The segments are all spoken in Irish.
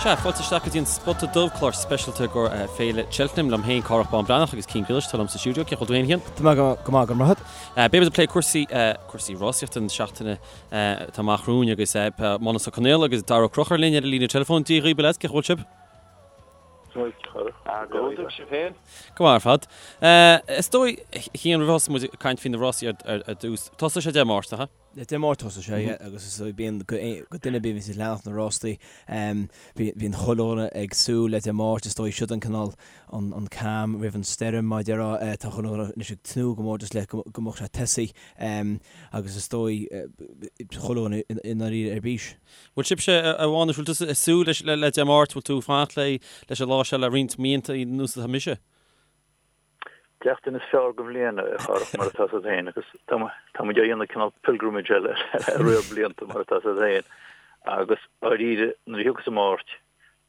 Sea, fáilte isteach go dtí an Spota Dubh, clár speisialta i gcomhair Féile Cheltenham. Liom féin, Cárthach Bán Breathnach agus Cian Griallais atá liom sa stiúideo. Cén chaoi a bhfuil tú féin, a Chian? Tá mé go maith, go raibh maith agat. Beidh muid ag plé cúrsaí, cúrsaí rásaíochta na seachtaine atá amach romhainn agus Mánus Ó Conghaile agus Dara Ó Conchúir linn ar an líne teileafóin. Dia dhaoibh, a leaids, cén chaoi a bhfuil sibh? Go hiontach, sibh féin? Go maith ar fad. Is dóigh, a Chian, roimh a thosóidh muid ag caint faoi na rásaí ar dtús, tosóidh sé Dé Máirt, nach ea? Dé Máirt tosóidh sé, yeah, agus is dóigh bíonn do dhuine ar bith a bhíonns ag leanacht na rástaí, bíonn chuile dhuine ag súil le Dé Máirt, is dóigh siod an cineál an an calm roimh an stoirm mar a déarfá, tá chuile dhuine anois ag tnúth go mór just le go mbeadh sé tosaithe agus is dóigh chuile dhuine i ndáiríre ar bís. Bhfuil sibhse, a Mhánais, bhfuil tusa ag súil leis le Dé Máirt, bhfuil tú ag fanacht le leis an lá seo le roinnt míonna anuas atá mise? Seachtain is fearr den bhliain, a Chárthach, mar atá 's agat féin, agus tá muid á dhéanamh cineál pilgrimage le riar blianta, mar atá 's agat féin. Agus dáiríre, nuair a thiocfas an Máirt,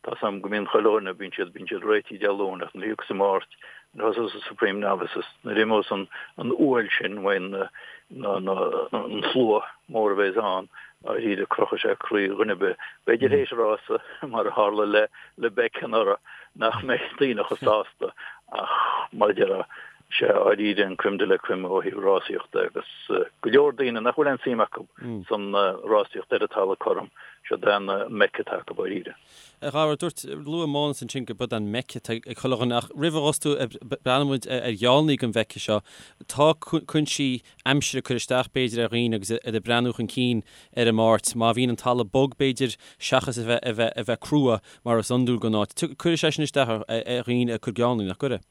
tá 's a'm go mbíonn chuile dhuine, bíonn siad, bíonn siad réitithe Dé Luain, ach nuair a thiocfas an Máirt, nuair a thosós an Supreme Novices, nuair a imeos an an uaill sin uaidh na, na, na, an slua mór a bheas ann, dáiríre, crochfaidh sé croí dhuine ar bith. B'fhéidir théis rása, mar a tharla le, le Beck anuraidh, nach mbeidh daoine chomh sásta ach mar a déarfá, sé dháiríre an crème de la crème ó thaobh rásaíochta agus go leor daoine nach bhfuil aon suim acu san rásaíocht ar an talamh cothrom, siod é an Mecca atá acu dháiríre. A Dhara, dúirt, luaigh Mánas ansin go b'iod an Mecca atá ag chuile dhuine ach roimh a thosú ag breathnú muid ar gheallnaí don Mhecca seo, tá cúinsí aimsire ag cur isteach b'fhéidir ar dhaoine agus iad ag breathnú chun cinn ar an Máirt. Má bhíonn an talamh bog b'fhéidir seachas a bheith a bheith a bheith crua mar is iondúil don áit. Cuirfidh sé sin isteach ar dhaoine ag cur geallnaí, nach gcuirfidh?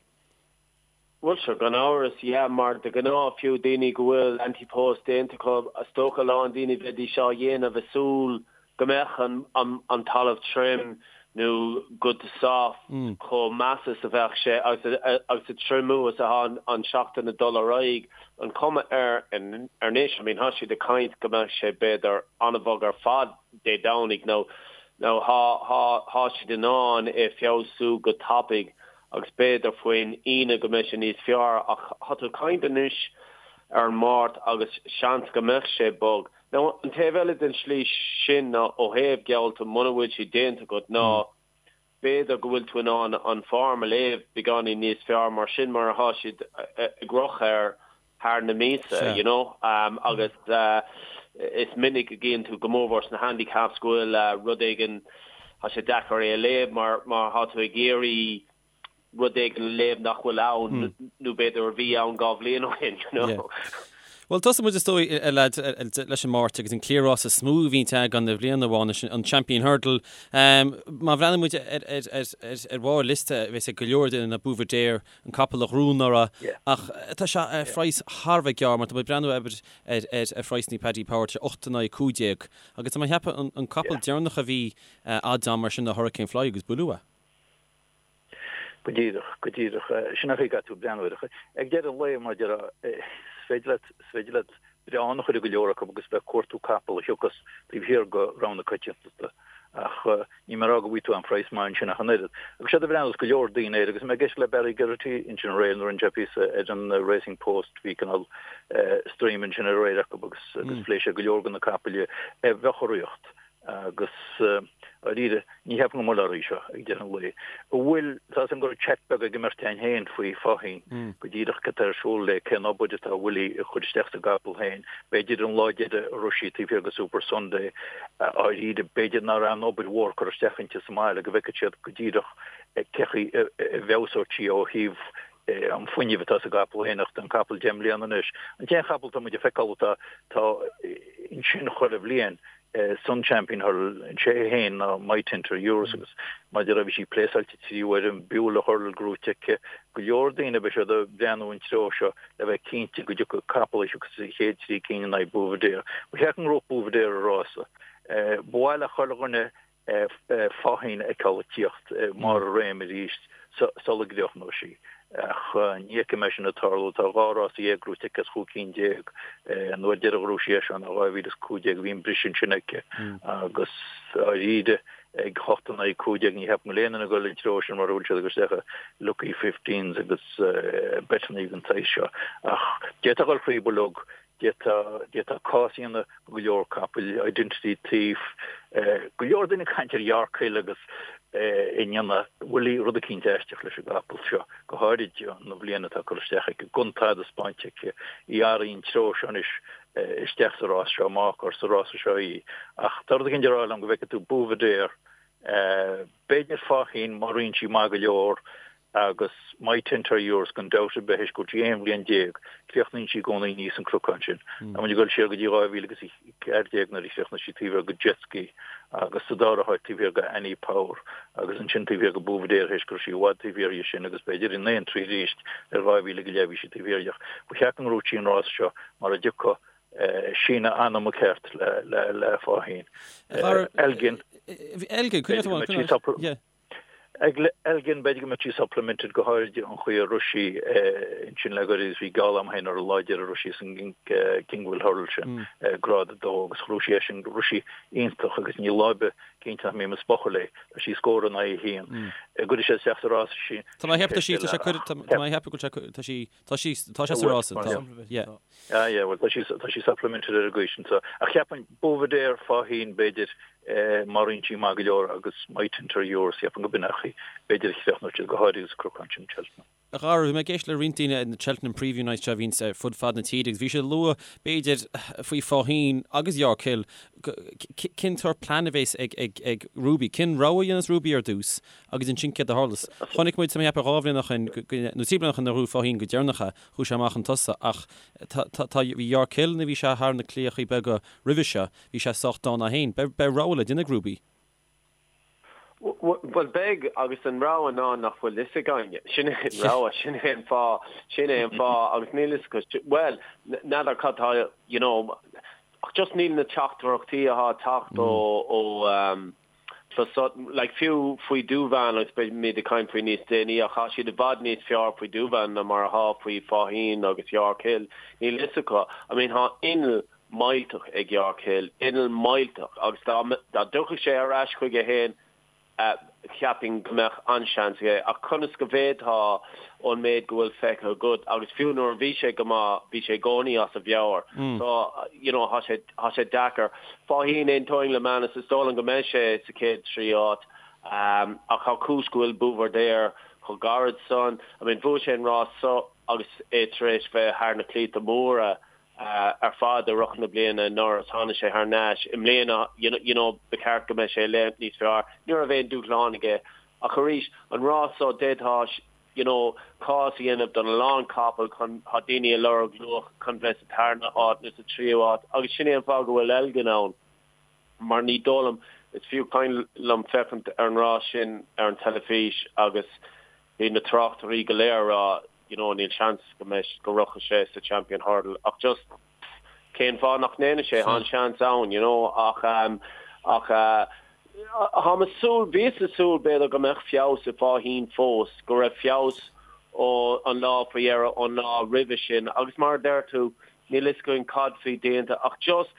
Bhuel sure, gan amhras, yeah, mar de ghnáth fiú daoine go bhfuil ante-post déanta acu, is dócha a lán daoine bheidís á dhéanamh ag súil go mbeadh an talamh tirim nó good to soft chomh measa is a bheadh sé agus agus an triomú is atá an seachtain ag dul ar aghaidh, an cuma air anois, I mean thá siad ag caint go mbeadh sé b'fhéidir an-bhog ar fad Dé Domhnaigh nó nó thá thá thá siad in ann é feabhsú go tapaidh agus b'fhéidir faoin Aoine go mbeidh sé níos fearr ach thá tú ag caint anois ar an Máirt agus seans go mbeadh sé bog. Now, an taobh eile den slí sin ná ó thaobh geallta, muna bhfuil siad déanta agat, ná b'fhéidir go bhfuil tú in ann an form a léamh beagáinín níos fearr mar sin mar athá siad ag rith air thar na míosa, you know. Agus is minic a gcíonn tú, go mórmhór sna handicaps, go bhfuil rud éigin, tá sé deacair é a léamh mar mar thá tú ag iarraidh rud éigin a léamh nach bhfuil ann nó b'fhéidir a bhí ann 2 bhliain ó shin, you know. Bhuel, tosóidh muid is dóigh, a leaids, leis an Máirt agus an cliathrás is mó a bhíonn againn i bhliain amháin, an Champion Hurdle. Má bhreathnaíonn muid ar bharr liosta, bheadh ag go leor daoine ná Buveur d'Air, an capall a ghnóthaigh anuraidh, ach tá sé ar phraghas thar a bheith gearr mar tá muid ag breathnú ar ar phraghsanna Paddy Power, tá sé 8 in aghaidh 15. Agus tá mé ag ceapadh an capall deireanach a bhí odds-on mar sin ná Hurricane Fly agus buaileadh é. Go díreach, go díreach. Sin an chaoi a gcaithfidh tú breathnú air. Ag deireadh an lae, mar a déarfá, is féidir leat, is féidir leat breán a chur i go leor acu agus bheith ag cuartú capall a thiocfas taobh thiar de rogha na coitiantachta. Ach níl mé ag rá go bhfaighidh tú aon phraghas maith ansin ach an oiread. Agus séard a bhreathnós go leor daoine air, agus mé ag éisteacht le Barry Geraghty ansin aréir nuair a rinne sé píosa ar an Racing Post, bhí cineál stream ansin aréir acu agus agus phléigh sé go leor de na capaill a bheadh i riocht. Agus, dáiríre, ní cheapaim go mbeidh orthu seo ag deireadh an lae. An bhfuil, tá 'fhios a'm go raibh chat beag ag an mbeirt againn féin faoi Faugheen, go díreach cad tá ar siúl léi, cén obair atá Willie ag cur isteach sa gcapall féin. B'fhéidir an lá deiridh a rith sí taobh thiar de Super Sunday, dáiríre, b'fhéidir nach raibh aon obair mhór curtha isteach inti sa mbaile, go bhfeicfeadh siad go díreach cé chaoi a bhfeabhsóidh sí ó thaobh an fuinneamh atá sa gcapall féin ach tá an capall 10 mbliana anois. An t-aon chapall atá muid ag feiceáil atá tá ansin chuile bhliain san Champion Hurdle sé é féin ná My Tinter Euros agus mar a déarfá bhí sí pléasáilte 3 uair an Beulah Hurdle gnóite aici. Go leor daoine beidh siad ag breathnú an treo seo le bheith cinnte go dtiocfaidh capall a thiocfas sa chéad trí cinn in aghaidh Buveur d'Air. Ba cheart go ngnóthódh Buveur d'Air an rása. Ba mhaith le chuile dhuine Faugheen a fheiceáil ag tíocht i mbarr a réime arís sula gcríochnóidh sí. Ach ní fheicim é sin ag tarlú. Tá 12 rása gnóite aici as 15 cinn. An uair deiridh a ghnóthaigh sí é seo ná 2015, bhí an briseadh ansin aici agus dáiríre ag 8 in aghaidh 15 ní cheapaim go bhfuil aon duine ag dul an treo sin mar a bhfuil siad ag dul isteach i lucky fifteens agus beiteanna den tsaghas seo. Ach d'fhéadfadh a dhul faoi bhuilleog. D'fhéadfá cás a dhéanamh do go leor capaill, Identity Thief, go leor daoine ag caint ar York Hill agus i ndéanamh Willie rud eicínt aisteach leis an gcapall seo, go háirid an bhliain atá curtha isteach aici, gan tada spáinte aici, í athraíonn treo seo anois isteach sa rás seo, amach ar sa rása seo í. Ach tá rud eicínt ag rá liom go bhfeicfidh tú Buveur d'Air, b'fhéidir Faugheen má ritheann sí maith go leor, Agus My Tent or Yours, gan dabht ar bith, théis go bhfuil sí 11 bhliain, críochnaíonn sí i gcónaí aníos an cnocán sin. Tá muid ag dul siar go dtí 2014 nuair a chríochnaigh sí taobh thiar de Jezki agus sa dara háit taobh thiar de Annie Power agus ansin taobh thiar de Buveur d'Air théis go raibh sí i bhfad taobh thiar dhe sin agus b'fhéidir in aon tslí arís ar 2000 go leith bhí sí taobh thiar dhe. Ba cheart go ngnóthódh sí an rás seo mar a dtiocfadh síneadh anama ceart le Faugheen. Elgin. Elgin, coinneoidh tú an. Ag Elgin, b'fhéidir go mbeadh sí supplemented, go háirid an chaoi a rith sí ansin le goirid agus bhí geall agam féin ar an lá deiridh a rith sí san Kingwell Hurdle sin, grád 2, agus ghnóthaigh sí é sin, rith sí iontach agus níl lá ar bith cinnte nach mbím ag spochadh léi. Tá sí scór in aghaidh a haon. Gcuirfidh sé isteach sa rás sí. Tá mé ag ceapadh tá sí, tá sé, tá mé ag ceapadh go bhfuil sé, tá sí, tá sí, tá sé sa rás, tá, yeah. Ah yeah, bhuel tá sí, tá sí supplemented ar an gcaoi sin so. Ach cheapfainn Buveur d'Air, Faugheen, b'fhéidir, má ritheann sí maith go leor agus My Tent or Yours, cheapfainn go b'in é an chaoi, b'fhéidir a chríochnóidh siad, go háirithe sa cnocán sin Cheltenham. A Dhara, bhí mé ag éisteacht le roinnt daoine ar na Cheltenham Preview Nights seo a bhíonns ar fud fad na tíre agus bhí siad ag lua, b'fhéidir, faoi Faugheen agus York Hill, cén sórt plean a bhéas ag, ag, ag Ruby, cén rogha a dhéanfas Ruby ar dtús agus ansin céard a tharlós. Chonaic muid, tá mé ag ceapadh, 2 bhliain ó shin, nó 3 bliana ó shin nuair a ghnóthaigh Faugheen go deireanach é, Chuaigh sé amach chun tosaigh ach tá, tá, tá, bhí York Hill nuair a bhí sé thar na claíochaí beaga roimhe seo, bhí sé sách dána é féin. Beidh, beidh rogha le déanamh ag Ruby. Bhuel, beidh, agus an rogha ná nach bhfuil fhios againne. Sin é an rogha, sin é an fáth, sin é an fáth, agus níl fhios acu, bhuel, n'fheadar cad tá, you know, ach just níl na teachtaireachtaí atá ag teacht ó, ó, Clos like fiú faoi Douvan agus beimid ag caint faoi níos déanaí ach tá siad i bhfad níos fearr faoi Douvan ná mar atá faoi Faugheen agus York Hill. Níl fhios acu. I mean tá inneall millteach ag York Hill, inneall millteach agus dá dá dtiocfadh sé ar ais chuige féin cheapfainn go mbeadh an-seans aige ach conas go bhféadfá ón méid go bhfuil feicthe agat agus fiú nuair a bhí sé go maith bhí sé i gcónaí as a mheabhair so you know tá sé tá sé deacair. Faugheen aontaím le Manus is dóigh liom go mbeidh sé sa chéad 3 áit ach tá cúis go bhfuil Buveur d'Air chomh gairid san. I mean bhuaigh sé an rás so agus é tar éis bheith thar na claíocha móra ar fad i rith na bliana anuraidh is tháinig sé thar n-ais i mbliana you know ba cheart go mbeidh sé léim níos fearr. Ní raibh aon dúshlán aige ach arís an rás so d'fhéadfá you know, cás a dhéanamh don a lán capall chun, tá daoine ag lorg luach chun bheith sa tarna háit nó sa tríú háit agus sin é an fáth go bhfuil Elgin ann mar ní dóigh liom, is fiú cuimhin liom féachaint ar an rás sin ar an teilifís agus bhí na tráchtairí go léir ag rá you know níl seans go mbeidh, go rachaidh sé sa Champion Hurdle ach just cén fáth nach ndéanfaidh sé, tá an seans ann you know ach ach Táim ag súil, bhíos ag súil b'fhéidir go mbeadh feabhas i Faugheen fós, go raibh feabhas ó an lá faoi dheireadh ón lá roimhe sin agus mar a deir tú, níl fhios againn cad faoi déanta ach just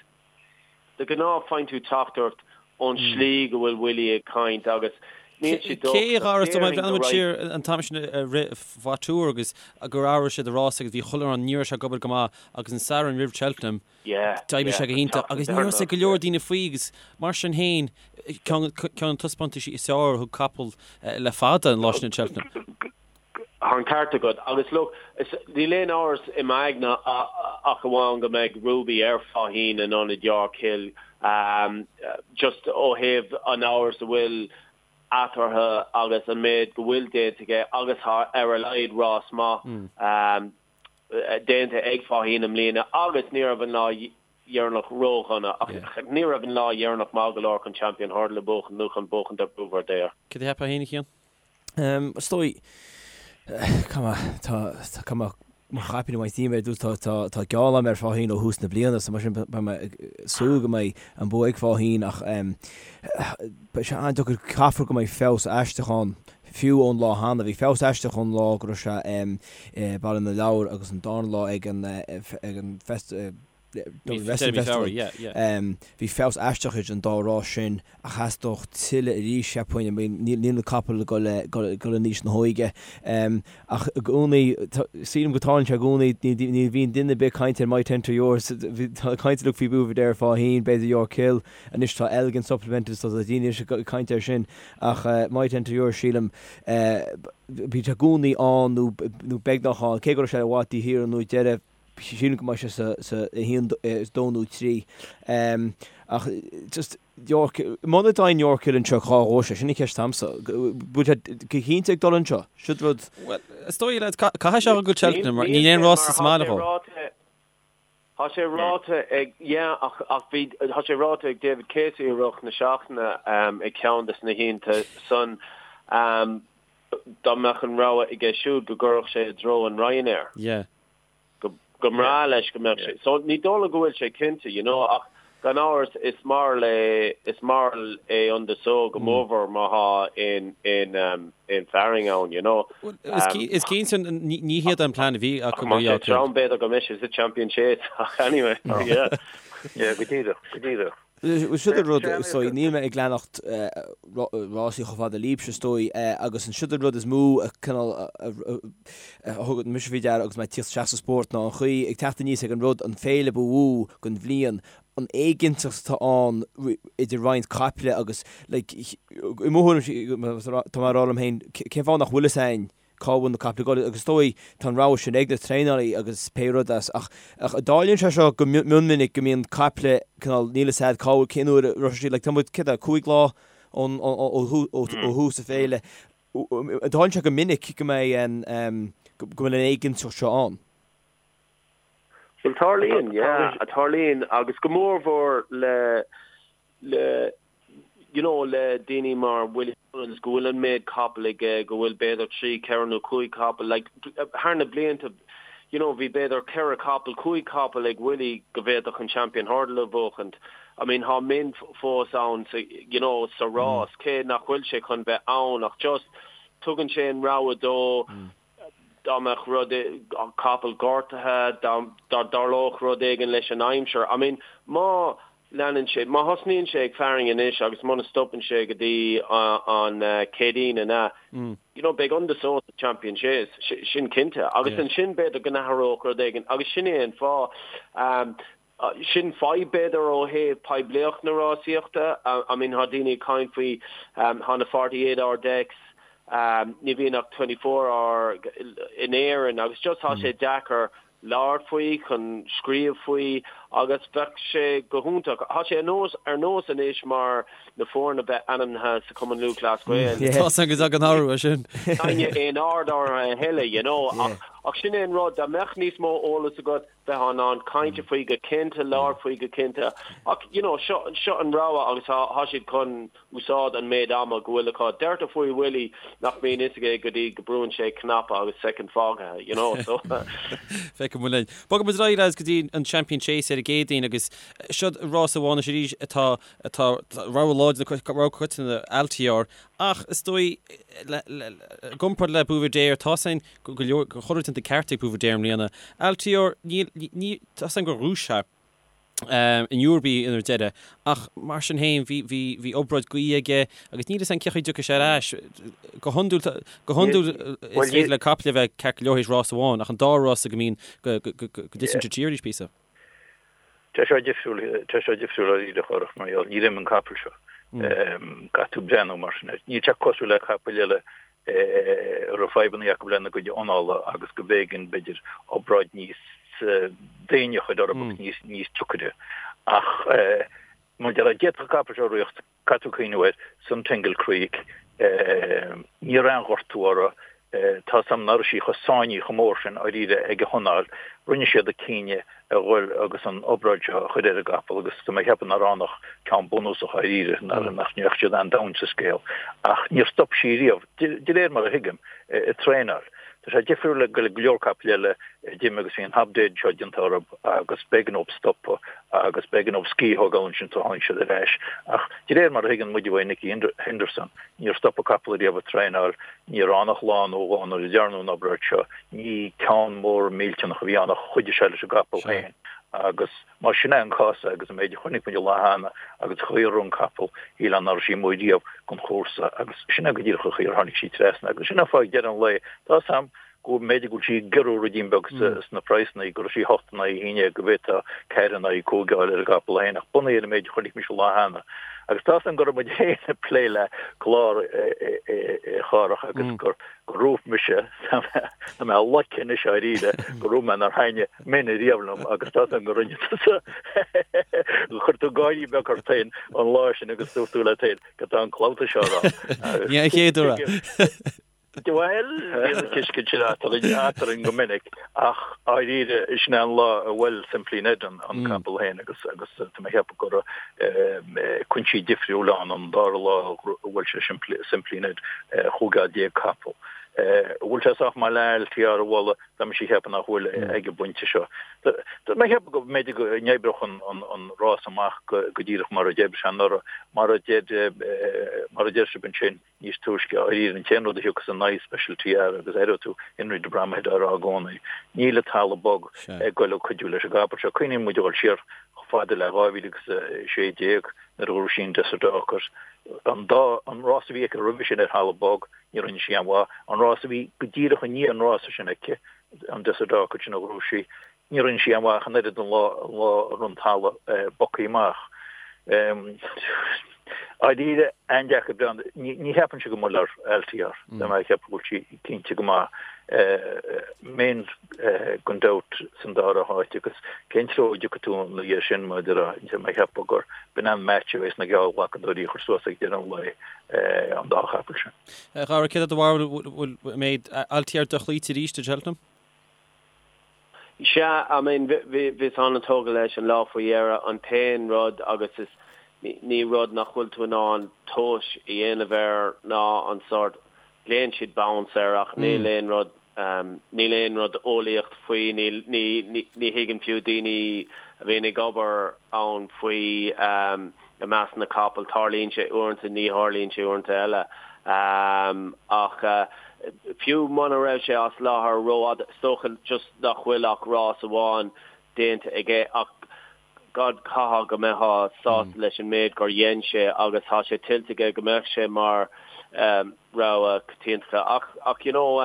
de ghnáth faigheann tú teachtaireacht ón slí go bhfuil Willie ag caint agus níl sé docht. Cé a ghabhras dom, bhreathnaigh muid siar an t-am sin a rith Vautour agus gur athraigh siad a rás agus bhí chuile rud, ní raibh sé ag obair go maith agus an Satharn roimh Cheltenham, D'oibrigh sé go hiontach agus ní raibh fhios ag go leor daoine faoi agus mar sin féin, ceann de na taispeántaisí is fearr a thug capall le fada an lá sin in Cheltenham. Tá an ceart agat agus look, níl aon amhras i m'aigne ach amháin go mbeidh Ruby ar Faugheen in ionad York Hill just ó thaobh an amhras a bhfuil eatarthu agus an méid go bhfuil déanta aige agus tá ar a laghad rás maith déanta ag Faugheen i mbliana agus ní raibh an lá dheireanach ródhona ach ní raibh an lá dheireanach maith go leor chun Champion Hurdle a bhuachan nó chun buachaint ar Buveur d'Air. Cad a cheapfá féin, a Chian? Is dóigh, tá, tá mo chaipín ag baint díom ar dtús, tá, tá geall agam ar Faugheen ó thús na bliana so mar sin beidh mé ag súil go mbeidh an bua ag Faugheen ach beidh sé an-deacair, caithfear go mbeidh feabhas aisteach ann Fiú ón lá cheana, bhí feabhas aisteach ón lá go raibh sé i Baile na Lobhar agus an darna lá ag an ag an. Dublin Wrestling Festival. Bhí feabhas aisteach idir an dá rás sin ach theastódh tuilleadh arís, cheapfainn. Níl na capaill ag dul in aois na hóige. Ach i gcónaí, sílim go dtarlaíonn sé i gcónaí, ní bhíonn duine ar bith ag caint ar Might Enter Yours. Tá caint uilig faoi Buveur d'Air Faugheen, b'fhéidir York Hill. Anois tá Elgin supplemented so tá daoine anois ag caint air sin. Ach Might Enter Yours, sílim, bíonn sé i gcónaí ann nó beagnach ann, cé go raibh sé i bhfad taobh thiar nó ag deireadh. Sílim go mbeidh sé sa sa 1, 2 nó 3. Ach just York, muna dtéann York Hill anseo cá ghabhfaidh sé? Sin an cheist a'msa. Bhfuil sé go cinnte ag dul anseo? Siod rud. Bhuel, is dóigh leat, caithfidh sé go Cheltenham mar níl aon rás sa mbaile dhó. Tá sé ráite ag, yeah, ach ach bhí, tá sé ráite ag David Casey i rith na seachtaine ag ceann de na hoícheanta san, dá mbeadh an rogha aige siúd go gcuirfeadh sé i dtreo an Ryanair. Yeah. Go go mbreá leis go mbeadh sé. So ní dóigh liom go bhfuil sé cinnte, you know, ach gan amhras is mairg é is mairg é Un de Sceaux go mórmhór má thá aon aon aon fearainn ann, you know. Is cinnte ní hiad an plean a bhí acu go dtí. Trom b'fhéidir go mbeidh sé sa Champion Chase ach anyway, yeah. Yeah, go díreach, go díreach. Siod an rud, is dóigh, níl mé ag leanacht rásaí chomh fada libhse, is dóigh, agus an siod an rud is mó a cineál a thug mise faoi deara agus mé ag tíocht isteach sa spórt ná an chaoi ag teacht aníos ag an rud, an féile ba mhó den bhliain, an éiginnteacht atá ann idir roinnt caiple agus like i mo thuairim, tá mé ag rá liom féin, cén fáth nach bhfuil fhios a'inn cá bhfuil na caiple ag dul agus is dóigh tá an rogha sin ag na traenálaí agus pé rud as ach ach tarlaíonn sé seo go mion minic go mbíonn caiple cineál níl fhios a'd cá bhfuil cén uair a raibh siad like tá muid céard é 5 lá ón ó ó ó thús na féile tarlaíonn sé go minic go mbeidh an go bhfuil an éiginnteacht seo ann. Bhuel tarlaíonn yeah tarlaíonn agus go mórmhór le le you know le daoine mar Willie Mullins go bhfuil an méid capall aige, go bhfuil b'fhéidir trí, ceithre nó cúig capall, like thar na blianta you know bhí b'fhéidir ceithre capall, cúig capall ag Willie go bhféadfadh an Champion Hurdle a bhuachaint. I mean thá min fós ann sa you know sa rás cé nach bhfuil sé chun bheith ann ach just tugann sé an rogha dó dá mbeadh rud, capall gortaithe, dá dtarlódh rud éigin leis an aimsir. I mean, má leanann sé, má thosnaíonn sé ag fearainn anois agus muna stopann sé go dtí an Céadaoin an ea, you know, beidh Un de Sceaux sa Champion Chase, sin cinnte. Agus ansin b'fhéidir go n-athródh rud éigin agus sin é an fáth. Sin fadhb b'fhéidir ó thaobh poiblíocht na rásaíochta. I mean thá daoine ag caint faoi, thá na 48 hour decks, ní bhíonn ach 24 hour in Éirinn agus just thá sé deacair labhairt faoi, chun scríobh faoi agus bheadh sé go hiontach. Thá sé ar nós anois mar na foirne bheith ainmnithe sa Chumann Lúthchleas Gael. Tá a fhios agam go dtagann athrú air sin. Ní aon aird orthu a thuilleadh, you know, ach sin é an rud, dá mbeadh níos mó eolas agat, bheifeá in ann caint faoi go cinnte, labhairt faoi go cinnte. Ach, you know, seo, seo an rogha agus thá, thá siad chun úsáid an méid ama go bhfuil acu. Deirtear faoi Willie nach mbíonn fhios aige go dtí go brúann sé cnaipe agus soicind fágtha, you know, so. Feicfidh muid linn. Bogfaidh muid ar aghaidh lads go dtí an Champion Chase ar an gCéadaoin agus seo rás amháin anois arís atá, atá, rogha láidir, rogha coitianta Altior ach is dóigh le, le, i gcomparáid le Buveur d'Air tá a fhios againn go leor, go chuile rud déanta ceart ag Buveur d'Air i mbliana. Altior, níl, ní, tá a fhios againn gur ghnóthaigh sé in Newbury ar deireadh, ach mar sin féin bhí, bhí, bhí obráid gaoithe aige agus níl fhios againn cén chaoi a dtiocfaidh sé ar ais. Go hiondúil, go hiondúil is féidir le caiple a bheith ceart go leor théis rás amháin, ach an dá rás go mbíonn, go, go, go, go dtiteann siad siar arís píosa. Tá sé difriúil, tá sé difriúil dáiríre a Chárthach mar gheall, ní réim an capall seo. Caithfidh tú breathnú mar sin air. Níl sé cosúil le capaill eile a raibh fadhbanna acu lena gcuid anála agus go mb'éigean, b'fhéidir, obráid níos déine a chur orthu agus níos, níos deacaire. Ach mar a déarfá, d'fhéadfadh an capall seo rith, caithfidh tú cuimhniú air, Suntangle Creek, ní raibh aon ghortú orthu, tá a fhios agam nach raibh sí chomh sáinnithe chomh mór sin dáiríre ag a hanáil, rinne siad an cinneadh a dhul agus an obráid seo a chur ar an gcapall agus tá mé ag ceapadh nach raibh ann ach ceann bunúsach dáiríre, nach ndeachaigh siad an-domhain sa scéal. Ach níor stop sí riamh, de réir mar a thuigim, ag traenáil. Tá sé difriúil le go leor capaill eile a d'imigh agus bhí an hobdaid seo déanta orthu agus b'éigean dóibh stopadh agus b'éigean dóibh scíth a thógáil ansin sula tháinig siad ar ais. Ach de réir mar a thuigeann muid uaidh Nicky Henderson, níor stop an capall riamh ag traenáil, ní raibh ann ach lá nó dhó nuair a dearnadh an obráid seo, ní ceann mór millteanach a bhí ann ach chuidigh sé leis an gcapall féin. Agus más sin é an cás agus an méid a chonaic muid an lá cheana agus an chaoi a raibh an capall, shílfeá nach raibh sí amuigh riamh don chúrsa agus sin é go díreach an chaoi ar tháinig sí trasna. Agus sin é an fáth ag deireadh an lae, tá 'fhios a'm go mb'fhéidir go bhfuil sí ag giorrú ruidín beag sna praghsanna, go raibh sí 8 in aghaidh 11, go bhféadfá 4 in aghaidh 5 a fháil ar an gcapall féin ach bunaithe ar an méid a chonaic mise an lá cheana. Agus tá 'fhios a'm go raibh muid féin ag plé le clár a Chárthach agus gur gur dhúirt mise, tá mé loicthe anois dáiríre, gur dhúirt mé nár thaitnigh Min riamh liom agus tá 'fhios a'm go rinne tusa, chuir tú gáirí beag ort féin an lá sin agus dúirt tú leat féin cad tá an clabhta seo a rá. Ní an chéad uair é. Bhuel, bhí an tuiscint sin eatarinn go minic ach dáiríre sin é an lá a bhuail Simply Ned an capall féin agus agus tá mé ag ceapadh go raibh cúinsí difriúla ann an dara lá a bhuail sé Simply Ned 15 capall. An bhfuil sé sách maith le Altior a bhualadh, tá mise ag ceapadh nach bhfuil ag an bpointe seo. Tá mé ag ceapadh go mb'fhéidir go n-oibreodh an rás amach go díreach mar a d'oibrigh sé anuraidh, mar a deir mar a deir sibh ansin. níos túisce, dáiríre, an t-aon rud a thiocfas in aghaidh Special Tiara agus aireoidh tú Henry de Bromhead á rá i gcónaí, níl an talamh bog ag goil ag cuidiú leis an gcapall seo. Cuimhníonn muid a dhul siar chomh fada le 2016 nuair a ghnóthaigh sí an Desert Orchid. An dá, an rás a bhí aici roimhe sin ar thalamh bog, ní rinne sí aon mhaith. An rás a bhí go díreach i ndiaidh an rása sin aici, an Desert Orchid sin a ghnóthaigh sí, Ní rinne sí aon mhaith ach an oiread an lá an lá a raibh an talamh bogtha amach. Dáiríre, an-deacair breathnú. Ní cheapaimse go mbuailfear Altior. Tá mé ag ceapadh go bhfuil sí cinnte go maith. Min gan dabht san dara háit agus cén treo a dtiocfaidh tú ina dhiaidh sin mar a déarfá. Tá mé ag ceapadh gur b'in an match a bheas na geallghlacadóirí a chur suas ag deireadh an lae an dá chapall sin. A Dhara, céard é do bharúil, bhfuil an mbeidh Altior dochloíte arís i Cheltenham? Sea, I mean, bhíos an-tógtha leis an lá faoi dheireadh. An t-aon rud, agus is ní rud nach bhfuil tú in ann tomhas a dhéanamh air ná an sórt, glaonn siad bounce air ach níl aon rud, níl aon rud eolaíocht faoi, níl, ní, ní thuigeann fiú daoine a bhíonn ag obair ann faoi i measc na capall. Tarlaíonn sé uaireanta, ní tharlaíonn sé uaireanta eile. Ach fiú muna raibh sé as láthair rófhada, is dócha just nach bhfuil ach rás amháin déanta aige ach God caithfidh go mbeifeá sásta leis an méid gur dhein sé agus tá sé tuillte aige go mbeadh sé mar rogha coitianta. Ach, ach you know,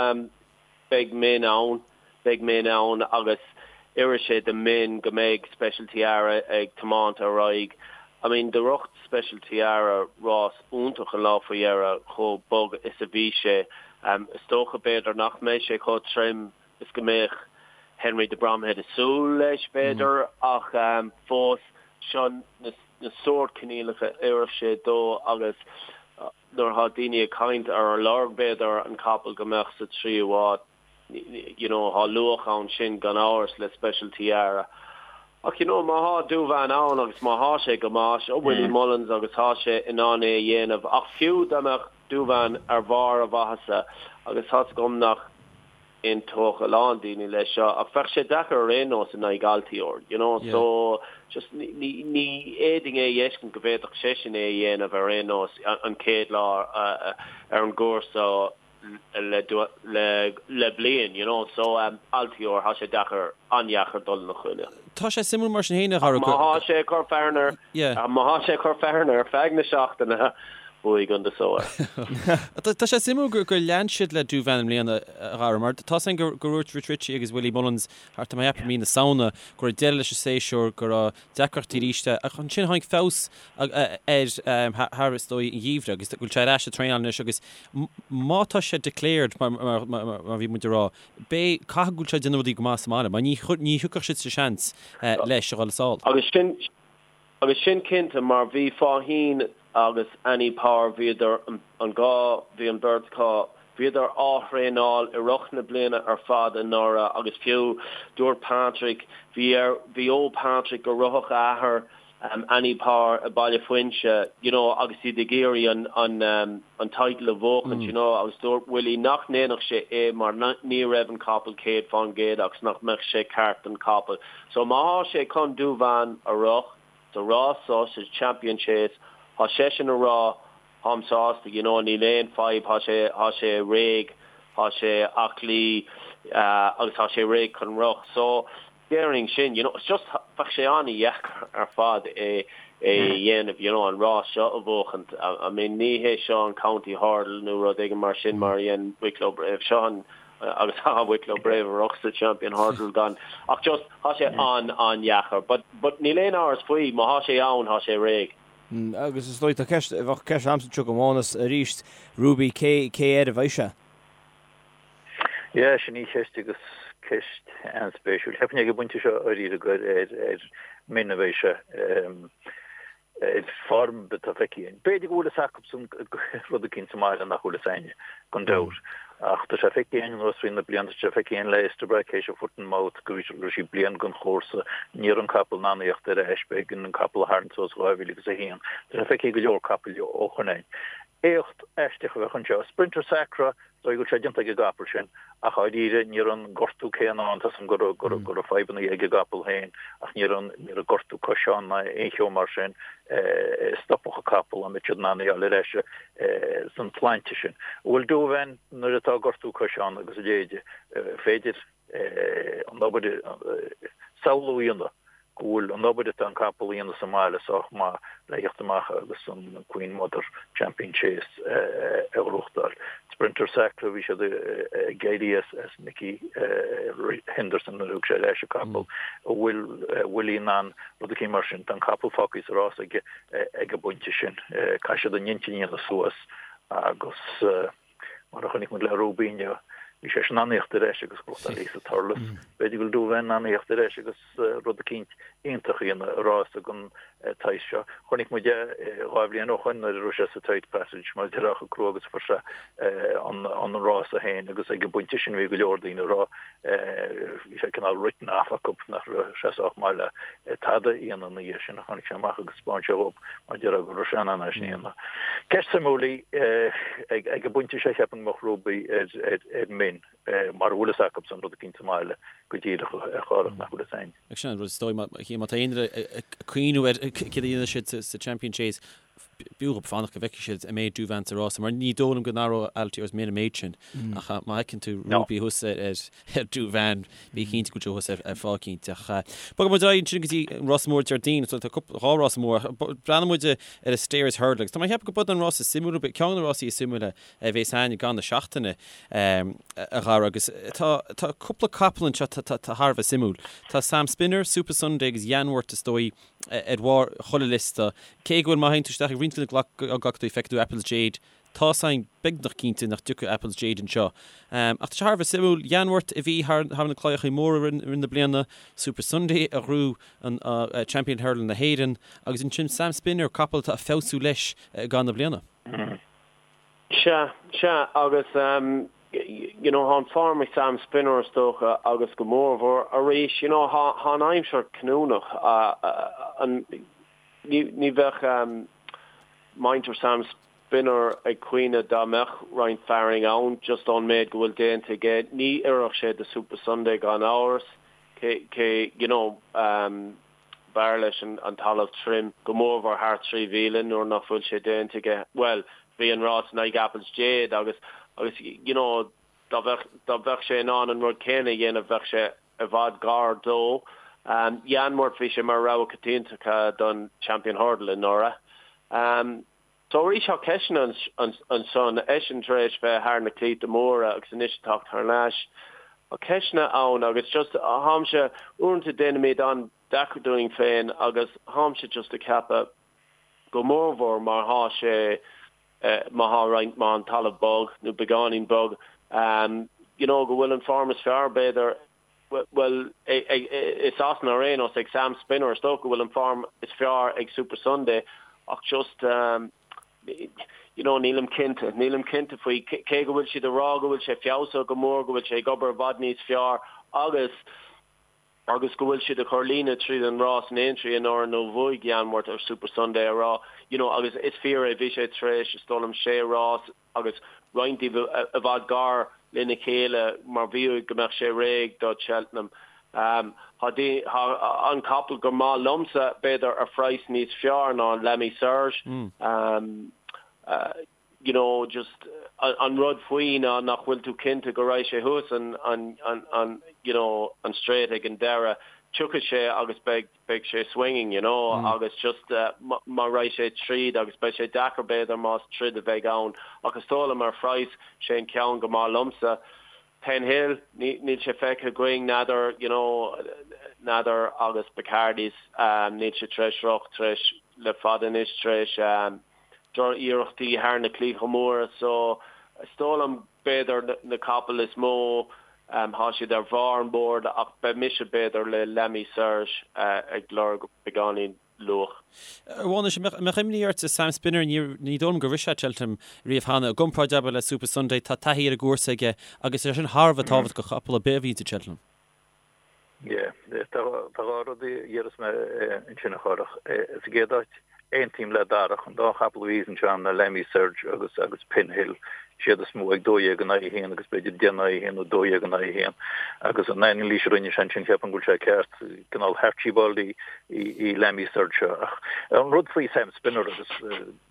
Beidh Min ann, beidh Min ann agus oirfidh sé do Min go mbeidh Special Tiara ag tiomáint ar aghaidh. I mean do rith Special Tiara rás iontach an lá faoi dheireadh chomh bog is a bhí sé. Is dócha b'fhéidir nach mbeidh sé chomh trim is go mbeadh Henry de Bromhead ag súil leis b'fhéidir ach fós seo na sórt coinníollacha a oirfeadh sé dó agus nuair atá daoine ag caint ar lorg b'fhéidir an capall go mbeadh sa tríú háit, you know, tá luach ann sin gan amhras le Special Tiara. Ach you know, má thá Douvan ann agus má thá sé go maith, seo Willie Mullins agus thá sé in ann é a dhéanamh. Ach fiú dá mbeadh Douvan ar bharr a mhaitheasa, agus tá's agam nach aontódh a lán daoine leis seo ach bheadh sé deacair ar aon nós in aghaidh Altior, you know, so just ní ní fhéadfainn é a fheiscint go bhféadfadh seisean é a dhéanamh ar aon nós an chéad lá ar an gcúrsa le le le bliain, you know, so Altior, thá sé deacair, an-dheacair dul ina choinne. Tá sé suimiúil mar sin féin a Dhara go. Má thá sé ag cur fearthainn air, má thá sé ag cur fearthainn ar feadh na seachtaine, bhuaigh an so air. Tá sé suimiúil gur lean siad le Douvan i mbliana, a Dhara, mar tá 's againn gur dhúirt Rich Ricci agus Willie Mullins thart ar mí na Samhna go raibh deireadh leis an séasúr, go raibh deacrachtaí arís ach ansin tháinig feabhas air thar is dóigh an gheimhreadh agus go bhfuil sé ar ais ag traenáil anois agus má tá sé declared mar a bhí muid ag rá, Beidh, caithfidh go bhfuil sé ag déanamh rudaí go maith sa mbaile, mar ní, ní thiocfadh siad sa seans leis a dhul sall. Agus sin, agus sin cinnte, mar bhí Faugheen agus Annie Power, bhíodar, an dhá, bhí an bheirt acu, bhíodar á thraenáil i rith na bliana ar fad anuraidh agus fiú dúirt Patrick, bhí ar, bhí ó Patrick go rithfeadh a athair Annie Power i Baile Fuinse, you know, agus iad ag iarraidh an, an, an title a bhuachaint, you know, agus dúirt Willie nach ndéanfadh sé é mar ní raibh an capall 100% agus nach mbeadh sé ceart don capall. So má thá sé chun Douvan a rith sa rás so, sa Champion Chase, thá seisean a rá tháim sásta, you know, níl aon fadhb, thá sé, thá sé réidh, thá sé aclaí, agus thá sé réidh chun rith. So déarfainn sin, you know, it's just. Bheadh sé an-dheacair ar fad é a dhéanamh, you know, an rás seo a bhuachaint. I mean, ní hé seo an County Hurdle nó rud éigin mar sin mar a dhein Wicklow Brave. Seo an, agus tá Wicklow Brave a rug sa Champion Hurdle gan, ach just, tá sé an-an-dheacair. But, but níl aon amhras faoi, má thá sé ann, thá sé réidh. Agus is dóigh, tá ceist, bheadh ceist a'msa anseo go Mánas arís, Ruby, cé, cé air a bheidh sé? Yeah, sin í ceist agus ceist an-spéisiúil. Cheapfainn ag an bpointe seo dháiríre gur ar ar Min a bheidh sé ar form atá feicthe againn. B'fhéidir go bhfuil fhios acusan rud eicínt sa mbaile nach bhfuil fhios a'inne, gan dabht. Ach tá sé feicthe againn anuas thrí na blianta, tá sé feicthe againn le Istabraq théis an foot and mouth go raibh sí bliain den chúrsa, ní raibh an capall in ann a thíocht ar ais, b'éigean an capall a tharraingt suas 2001. Tá sé feicthe ag go leor capaill ó shoin againn. Éacht aisteach a bheadh anseo. Sprinter Sacre, is dóigh go bhfuil sé déanta ag an gcapall sin, ach dháiríre ní raibh an gortú céanna ann, tá 's a'm go raibh go raibh fadhbanna ag an gcapall féin ach ní raibh an ní raibh gortú coise ann ná aon cheo mar sin a stopfadh an capall dá mbeadh siad in ann a fháil ar ais san tsláinte sin. Bhuel Douvan nuair atá gortú coise ann agus a leithéide, féidir an obair samhlú a dhéanamh go bhfuil an obair atá an capall a dhéanamh sa mbaile sách maith le theacht amach agus an Queen Mother Champion Chase a ghnóthachtáil. Sprinter Sacre, bhí siad ag éirí as Nicky Henderson nuair a thug sé ar ais an capall. An bhfuil Willie in ann rud eicínt mar sin? Tá an capall fágtha sa rás aige ag an bpointe sin. Caithfidh siad a n-intinn a dhéanamh suas agus. Mar a chonaic muid le Ruby inniu, bhí sé in ann a thíocht ar ais agus gnóthachtáil sa Thurles. B'fhéidir go bhfuil Douvan in ann a thíocht ar ais agus rud eicínt iontach a dhéanamh i rás den tsaghas seo. Chonaic muid é dhá bhliain ó shoin nuair a raibh sé sa tight passage mar a déarfá chomh crua agus a fuair sé an rása féin agus ag an bpointe sin bhí go leor daoine ag rá Bhí sé cineál written off acu nach raibh sé sách maith le tada a dhéanamh ina dhiaidh sin. Tháinig sé amach agus thaispeáin sé dhóibh mar a déarfá go raibh sé in ann é sin a dhéanamh. Ceist suimiúil í. Ag an bpointe seo cheapfainn go mbeadh Ruby ar Min mara bhfuil fhios acusan rud eicínt sa mbaile go díreach a Chárthach nach bhfuil fhios a'inn. Sin an rud is dóigh má tá aon duine ag cuimhniú ar céard a dhéanfaidh siad sa Champion Chase b'fhiú dhóibh fanacht go bhfeicfidh siad an mbeidh Douvan sa rása, mar ní dóigh liom go n-athródh Altior's Min an méid sin. Ach má fheiceann tú Ruby thuas ar Douvan, bí cinnte go bhfuil sé thuas ar fáth eicínt. Ach bogfaidh muid ar aghaidh ansin go dtí an rás mór Déardaoin. So tá cúpla, dhá rás mór. Breathnóidh muid ar an Stayers Hurdle agus tá mé ag ceapadh go b'in an rás is suimiúla, ceann de na rásaí is suimiúla a bhéas againn i gcaitheamh na seachtaine, a Dhara, agus tá tá cúpla capall anseo atá thar a bheith suimiúil. Tá Sam Spinner, Supasundae agus Yanworth is dóigh, ar bharr chuile liosta. Cé go bhfuil, má théann tú isteach ag roinnt de na glacadóirí, feicfidh tú Apple's Jade. Tá's againn beagnach cinnte nach dtiocfaidh Apple's Jade anseo. Ach tá sé thar a bheith suimiúil. Yanworth a bhí thar na claíochaí móra i rith na bliana, Supasundae a ghnóthaigh an Champion Hurdle na hÉireann agus ansin Sam Spinner, capall atá ag feabhsú leis i gcaitheamh na bliana. Sea, sea, agus you know thá an form ag Sam Spinner is dócha agus go mórmhór arís you know thá thá an aimsir cinniúnach an ní ní bheadh muintir Sam Spinner ag caoineadh dá mbeadh roinnt fearainn ann just ón méid go bhfuil déanta aige. Ní oirfeadh sé do Supasundae gan amhras cé cé you know B'fhearr leis an talamh tirim, go mórmhór thar 3,000 nuair nach bhfuil sé déanta aige. Bhuel, bhí an rás in aghaidh Apple's Jade agus, agus you know, dá bheadh, dá bheadh sé in ann an rud céanna a dhéanamh bheadh sé i bhfad gar dó. Yanworth, bhí sé mar rogha coitianta don Champion Hurdle anuraidh. So arís tá ceisteanna ansan, eisean tar éis bheith thar na claíte móra agus anois ag teacht thar n-ais. Tá ceisteanna ann agus just tháimse, uaireanta déanaimid an-deacair dúinn féin agus tháimse just ag ceapadh go mórmhór má thá sé, má thá roinnt, má an talamh bog nó beagáinín bog, you know go bhfuil an form is fearr b'fhéidir Bhuel, i Sasana ar aon nós, ag Sam Spinner, is dócha go bhfuil an form is fearr ag Supasundae ach just, you know, nílim cinnte, nílim cinnte faoi, cé go bhfuil siad ag rá go bhfuil sé feabhsaithe go mór, go bhfuil sé ag obair i bhfad níos fearr agus, agus go bhfuil siad ag cur líne tríd an rás in Aintree anuraidh nuair a bhuaigh Yanworth ar Supasundae a rá, you know, agus is fíor é, bhí sé tar éis, is dóigh liom, sé rás, agus roinnt díobh i bhfad gar lena chéile mar bhí uaidh go mbeadh sé réidh do Cheltenham. Tá an capall gur maith liomsa, b'fhéidir, ar phraghas níos fearr ná an L'Ami Serge. You know, just an rud faoi ná nach bhfuil tú cinnte go raghaidh sé thuas an, an, you know, an straight ag an deireadh. Tiocfaidh sé agus beidh beidh sé swinging, you know, agus just má raghaidh sé tríd agus beidh sé deacair b'fhéidir más troid a bheidh ann ach is dóigh liom ar phraghas sé an ceann go maith liomsa. Penhill, níl sé feicthe againn, n'fheadar, you know, n'fheadar agus Bacardys, níl sé tar éis rith tar éis le fada anois tar éis droch-iarrachtaí thar na claíocha móra so is dóigh liom b'fhéidir na capaill is mó Thá siad ar bharr an bhoird ach beidh mise b'fhéidir le L'Ami Serge ag lorg beagáinín luach. A Mhánais, an mbeadh imní ort Sam Spinner, ní dóigh liom gur rith sé Cheltenham riamh cheana. I gcomparáid, abair, le Super Sunday, tá taithí ar an gcúrsa aige agus é sin thar a bheith tábhachtach do chapall ar bith a bhíonns i Cheltenham. Yeah, tá dhá rud a dhéarfas mé ansin a Chárthach. Sa gcéad áit, aontaím le Darach, an dá chapall a bhí anseo ná L'Ami Serge agus agus Penhill, is iad is mó ag 12 in aghaidh 1 agus b'fhéidir 10 in aghaidh 1 nó 12 in aghaidh 1. Agus an anailís a rinne sé ansin, cheapfainn go bhfuil sé ceart, cineál Harchibald í í L'Ami Serge seo. Ach an rud faoi Sam Spinner agus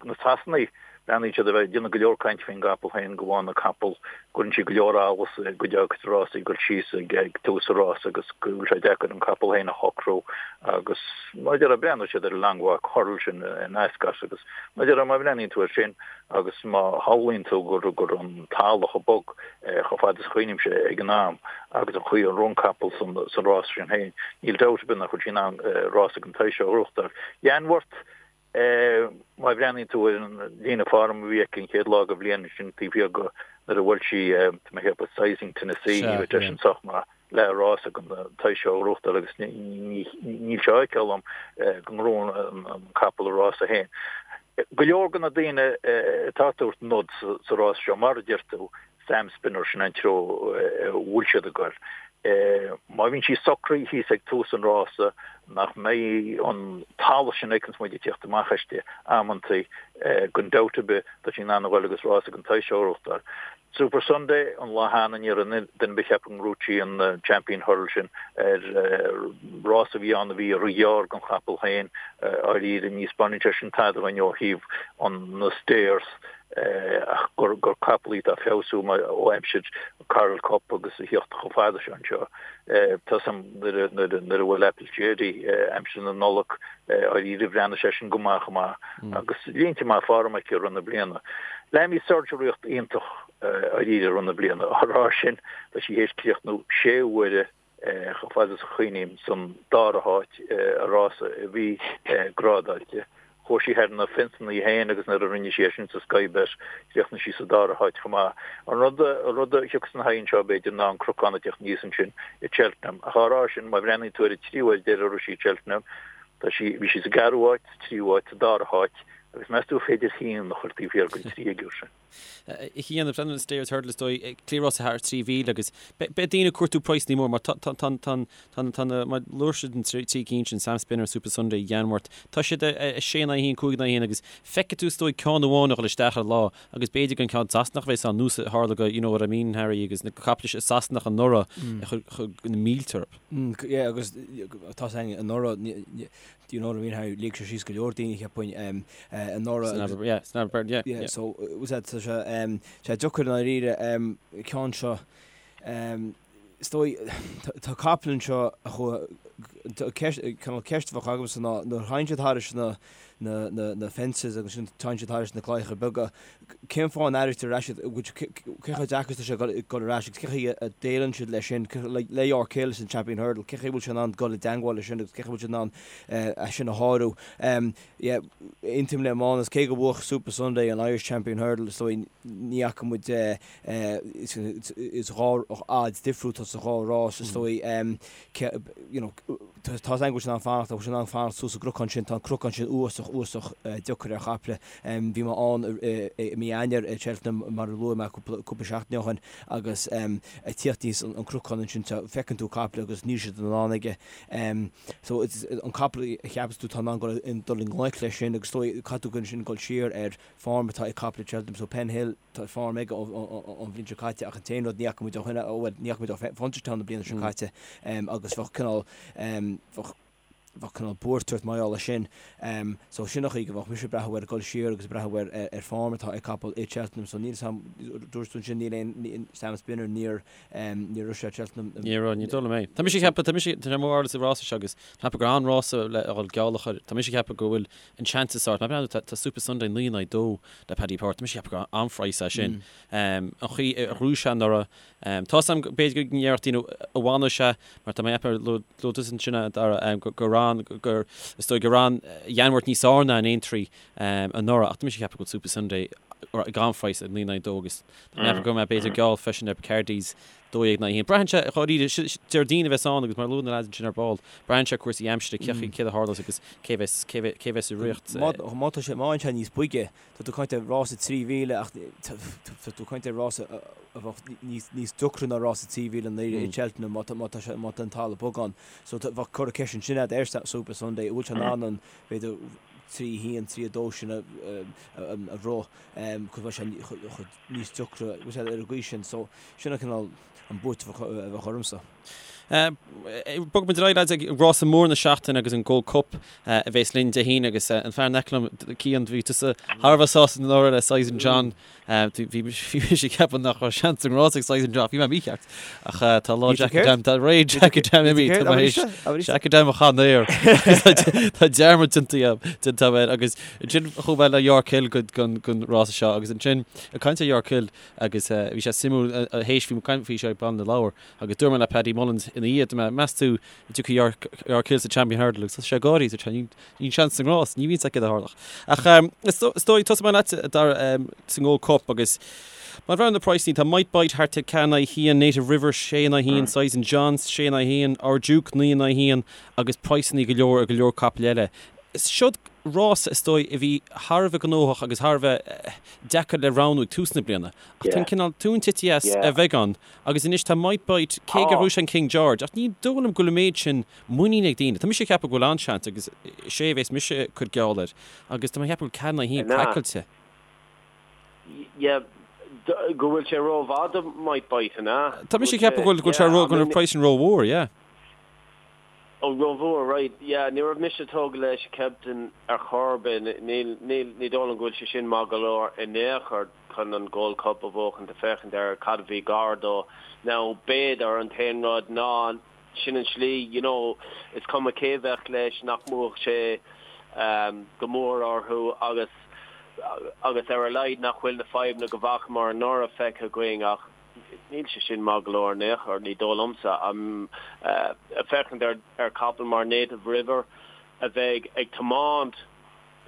na Sasanaigh, Breathnaíonn siad a bheith ag déanamh go leor cainte faoin gcapall féin, go bhfaigheann an capall, cuireann sí go leor allas i gcuid dá cuid rásaí, ag dul síos ag tús an rása agus go bhfuil sé deacair an capall féin a shocrú agus mar a déarfá, breathnóidh siad ar an Long Walk Hurdle sin in Ascot agus mar a déarfá, má bhreathnaíonn tú air sin agus má shamhlaíonn tú gur gur an talamh chomh bog chomh fada is a chuimhnímse ag an am agus an chaoi a raibh an capall san rás sin féin, níl dabht ar bith nach bhfuil sí in ann rása den tsaghas seo a ghnóthachtáil. Yanworth. Má bhreathnaíonn tú ar an líne form a bhí aici an chéad lá den bhliain sin taobh thiar de nuair a bhuail sí tá mé ag ceapadh Sizing Tennessee ní raibh seisean sách maith le rás den tsaghas seo a ghnóthachtáil agus níl sé á fheiceáil agam go ngnóthóidh an capall a rása féin. Go leor de na daoine atá ag tabhairt nod sa rás seo mar a deir tú Sam Spinner, sin an treo a bhfuil siad ag goil. Má bhíonn sí socraithe thíos ag tús an rása, nach mbeidh an talamh sin a fheiceanns muid ag tíocht amach aisti amantaí, gan dabht ar bith, tá sí in ann a ghoil agus rás den tsaghas seo a ghnóthachtáil. Super Sunday, an lá cheana, ní raibh duine ar bith ag ceapadh go ngnóthódh sí an Champion Hurdle sin ar rás a bhí ann a bhí róghearr don chapall féin, dháiríre, ní 'spáineann sé sin tada dhúinn ó thaobh an na stayers. ach gur capall í atá ag feabhsú ó aimsir Coral Cup agus a thíocht chomh fada seo anseo. Tá 's a'm nuair a bhuail Apple Jerry aimsir na Nollag dháiríre bhreathnaigh sé sin go maith chomh maith agus línte maith form aici i rith na bliana. L'Ami Serge rith iontach dháiríre i rith na bliana. Á rá sin, tá sí théis críochnú sé huaire chomh fada is a chuimhním, san dara háit i rása a bhí grádáilte. Chuaigh sí thar na fionsanna í féin agus nuair a rinne sí é sin sa Sky Bet, chríochnaigh sí sa dara háit chomh maith. An rud an rud a thiocfas ina haghaidh anseo, b'fhéidir, ná an cnocán ag teacht aníos ansin i Cheltenham. Ach á rá sin, má bhreathnaíonn tú ar an tríú huair deiridh a rith sí i Cheltenham, tá sí, bhí sí sa gceathrú háit, sa tríú háit, sa dara háit, agus meas tú an féidir haon a chur taobh thiar den tríoigiúr sin? A Chian, ag breathnú ar an Stayers Hurdle is dóigh, cliathrás thar 3,000 agus beidh daoine ag cuartú praghsanna mór mar tá tá na mar luaigh siad an trí cinn sin, Sam Spinner, Super Sunday, Yanworth, tá siad ar 6 in aghaidh 1, 5 in aghaidh 1 agus feicfidh tú is dóigh ceann amháin a dhul isteach ar lá agus b'fhéidir gur an ceann Sasanach a bheas ann nós a tharla go you know what I mean Harry agus na caiple Sasanach anuraidh a chuir na mílte orthu. Yeah agus tá a fhios againn anuraidh Do you know what I mean Harry? Lig sé síos go leor daoine cheapfainn anuraidh. San Aberburn, yeah, san Aberburn, yeah, yeah. So, was that, tá sé, sé deacair i ndáiríre, ceann seo, is dóigh, tá capall anseo a chuaigh, ceist, cineál ceist a bheadh agamsa ná nuair a théann siad thairis na, na, na, na fences agus sin téann siad thairis na claíocha beaga, Cén fáth a n-airítear ar ais iad? Cé chomh deacair is atá sé dul ar ais agus cén chaoi a déileann siad leis sin? Le York Hill san Champion Hurdle, cén chaoi a bhfuil sé in ann dul i dteangmháil leis sin agus cén chaoi a bhfuil siad in ann é sin a shárú? Aontaím le Mánas, cé gur bhuaigh Super Sunday an Irish Champion Hurdle, is dóigh ní fhaca muid is dhá fhad difriúil atá sa dhá rás, is dóigh. You know, tá a fhios againn go bhfuil sé in ann fanacht, bhfuil sé in ann fanacht suas an gcnocán sin, tá an cnocán sin uafásach, uafásach deacair ar chaiple. Bhí mé ann i mí Eanáir i Cheltenham mar a luaigh mé cúpla seachtain ó shin agus ag tíocht aníos an cnocán ansin feiceann tú caiple agus níl siad in ann aige. So an capall a cheapas tú tá in ann dul i ngleic leis sin agus caithfidh tú ansin dul siar ar form atá ag caiple Cheltenham so Penhill tá form aige ón bhliain seo caite ach an t-aon rud ní fhaca muid ó shin bhuel ní fhaca muid ó Punchestown na bliana seo caite agus bheadh cineál bheadh. Bheadh cineál buairt ort mar gheall air sin. So sin an chaoi go bheadh mise ag breathnú air, ag dul siar agus ag breathnú ar ar form atá ag capall i Cheltenham. So níl 'fhios a'm, dúirt tú ansin níl aon, Sam Spinner, níor, níor rith sé Cheltenham. Níor rith, ní dóigh liom é. Tá mise ag ceapadh, tá mise, tá sé mo bharúil sa rása seo agus tá mé ag ceapadh gur an-rása le a dhul geall a chur. Tá mise ag ceapadh go bhfuil an seans is ard. Má breathnaíonn tú, tá Supasundae 9 in aghaidh 2 le Paddy Power. Tá mise ag ceapadh gur an-phraghas é sin. An chaoi a ghnóthaigh sé anuraidh, Tá's a'm b'fhéidir go ndéarfadh daoine an bhfanfaidh sé mar tá mé ag ceapadh luaigh tusa ansin a Dhara gur an gur is dóigh gur an Yanworth níos fearr ná an Aintree anuraidh ach tá mise ag ceapadh go bhfuil Supasundae ag an-phraghas ag 9 in aghaidh 2 agus tá mé ag ceapadh go mbeidh b'fhéidir geall freisin ar Picardy's 12 in aghaidh 1. Braitheann sé dháiríre Déardaoin a bheas ann agus mar a luaigh na lads ansin ar ball braitheann sé cúrsaí aimsire cé céard a tharlós agus cé bheas cé bheas i riocht. Má tá sé má fhaigheann sé níos boige Tá tú ag caint ar rása 3,000 ach tá tú ag caint ar rása a bheadh níos deacra ná rása 3,000 i ndáiríre i Cheltenham má tá sé má tá an talamh bog ann. So bheadh curtha ceist ansin agat ar Supasundae an bhfuil sé in ann an b'fhéidir 3 1, 3 2 sin a rith cos bheadh sé níos deacra bhfuil sé ar an gcaoi sin. So sin an cineál an buairt a bheadh ormsa. Bogfaidh muid ar aghaidh lads ag rása mór na seachtaine agus an Gold Cup a bhéas linn Dé hAoine agus an fear in aice liom, Cian, bhí tusa thar a bheith sásta anuraidh le Sizing John. Bhí mise ag ceapadh nach raibh seans an rás ag Sizing John, bhí mé mícheart. Ach tá lá Djakadam, tá ré Djakadam imithe, tá mé théis Djakadam a chaitheamh air. Tá dearmad déanta agam air agus ansin chuaigh mé le York Hill don rása seo agus ansin ag caint ar York Hill agus bhí sé suimiúil théis bhí mé ag caint faoi seo ag Baile na Lobhar Agus dúirt mé le Paddy Mullins ina dhiaidh, dúirt mé, meas tú an dtiocfaidh York, York Hill sa Champion Hurdle agus thosaigh sé ag gáirí, dúirt sé, níl seans sa ngrás, ní bhíonn sé céard a tharlódh. Ach is dóigh, tosóidh mé leat, a Dara, sa nGold Cup agus má bhreathnaíonn na praghsanna, tá Might Bite thart ar 4 in aghaidh 1, Native River 6 in aghaidh 1, Sizing John 6 in aghaidh 1, Our Duke 9 in aghaidh 1 agus praghsanna go leor ar go leor capaill eile. Siod rás is dóigh a bhí thar a bheith gnóthach agus thar a bheith deacair le roghnú ag tús na bliana. Ach tá an cineál tóin tite as ar bheagán Agus anois tá Might Bite, cé gur bhuaigh sé an King George, ach ní dóigh liom go bhfuil an méid sin muiníne ag daoine. Tá mise ag ceapadh go bhfuil an-seans agus is é a bhéas mise ag cur geall air agus tá mé ag ceapadh go bhfuil 4 in aghaidh 1 craiceáilte. Yeah, go bhfuil sé rómhaith do Might Bite, an ea? Tá mise ag ceapadh go bhfuil sé ró, go bhfuil an praghas sin rómhór, yeah. Oh, rómhór, right, yeah, ní raibh mise tógtha leis Captain ar chor ar bith, níl, níl, ní dóigh liom go bhfuil sé sin maith go leor in aon chor chun an Gold Cup a bhuachan, ag féachaint ar cad a bhí gar dó. Now, b'fhéidir, an t-aon rud ná, sin an slí, you know, is cuma cé bheadh leis, nach mbuafadh sé go mór orthu agus, agus ar a laghad nach bhfuil na fadhbanna go bhfacamar anuraidh feicthe againn ach, Níl sé sin maith go leor in aon chor, ní dóigh liomsa. Ag féachaint ar chapall mar Native River a bheidh ag tiomáint,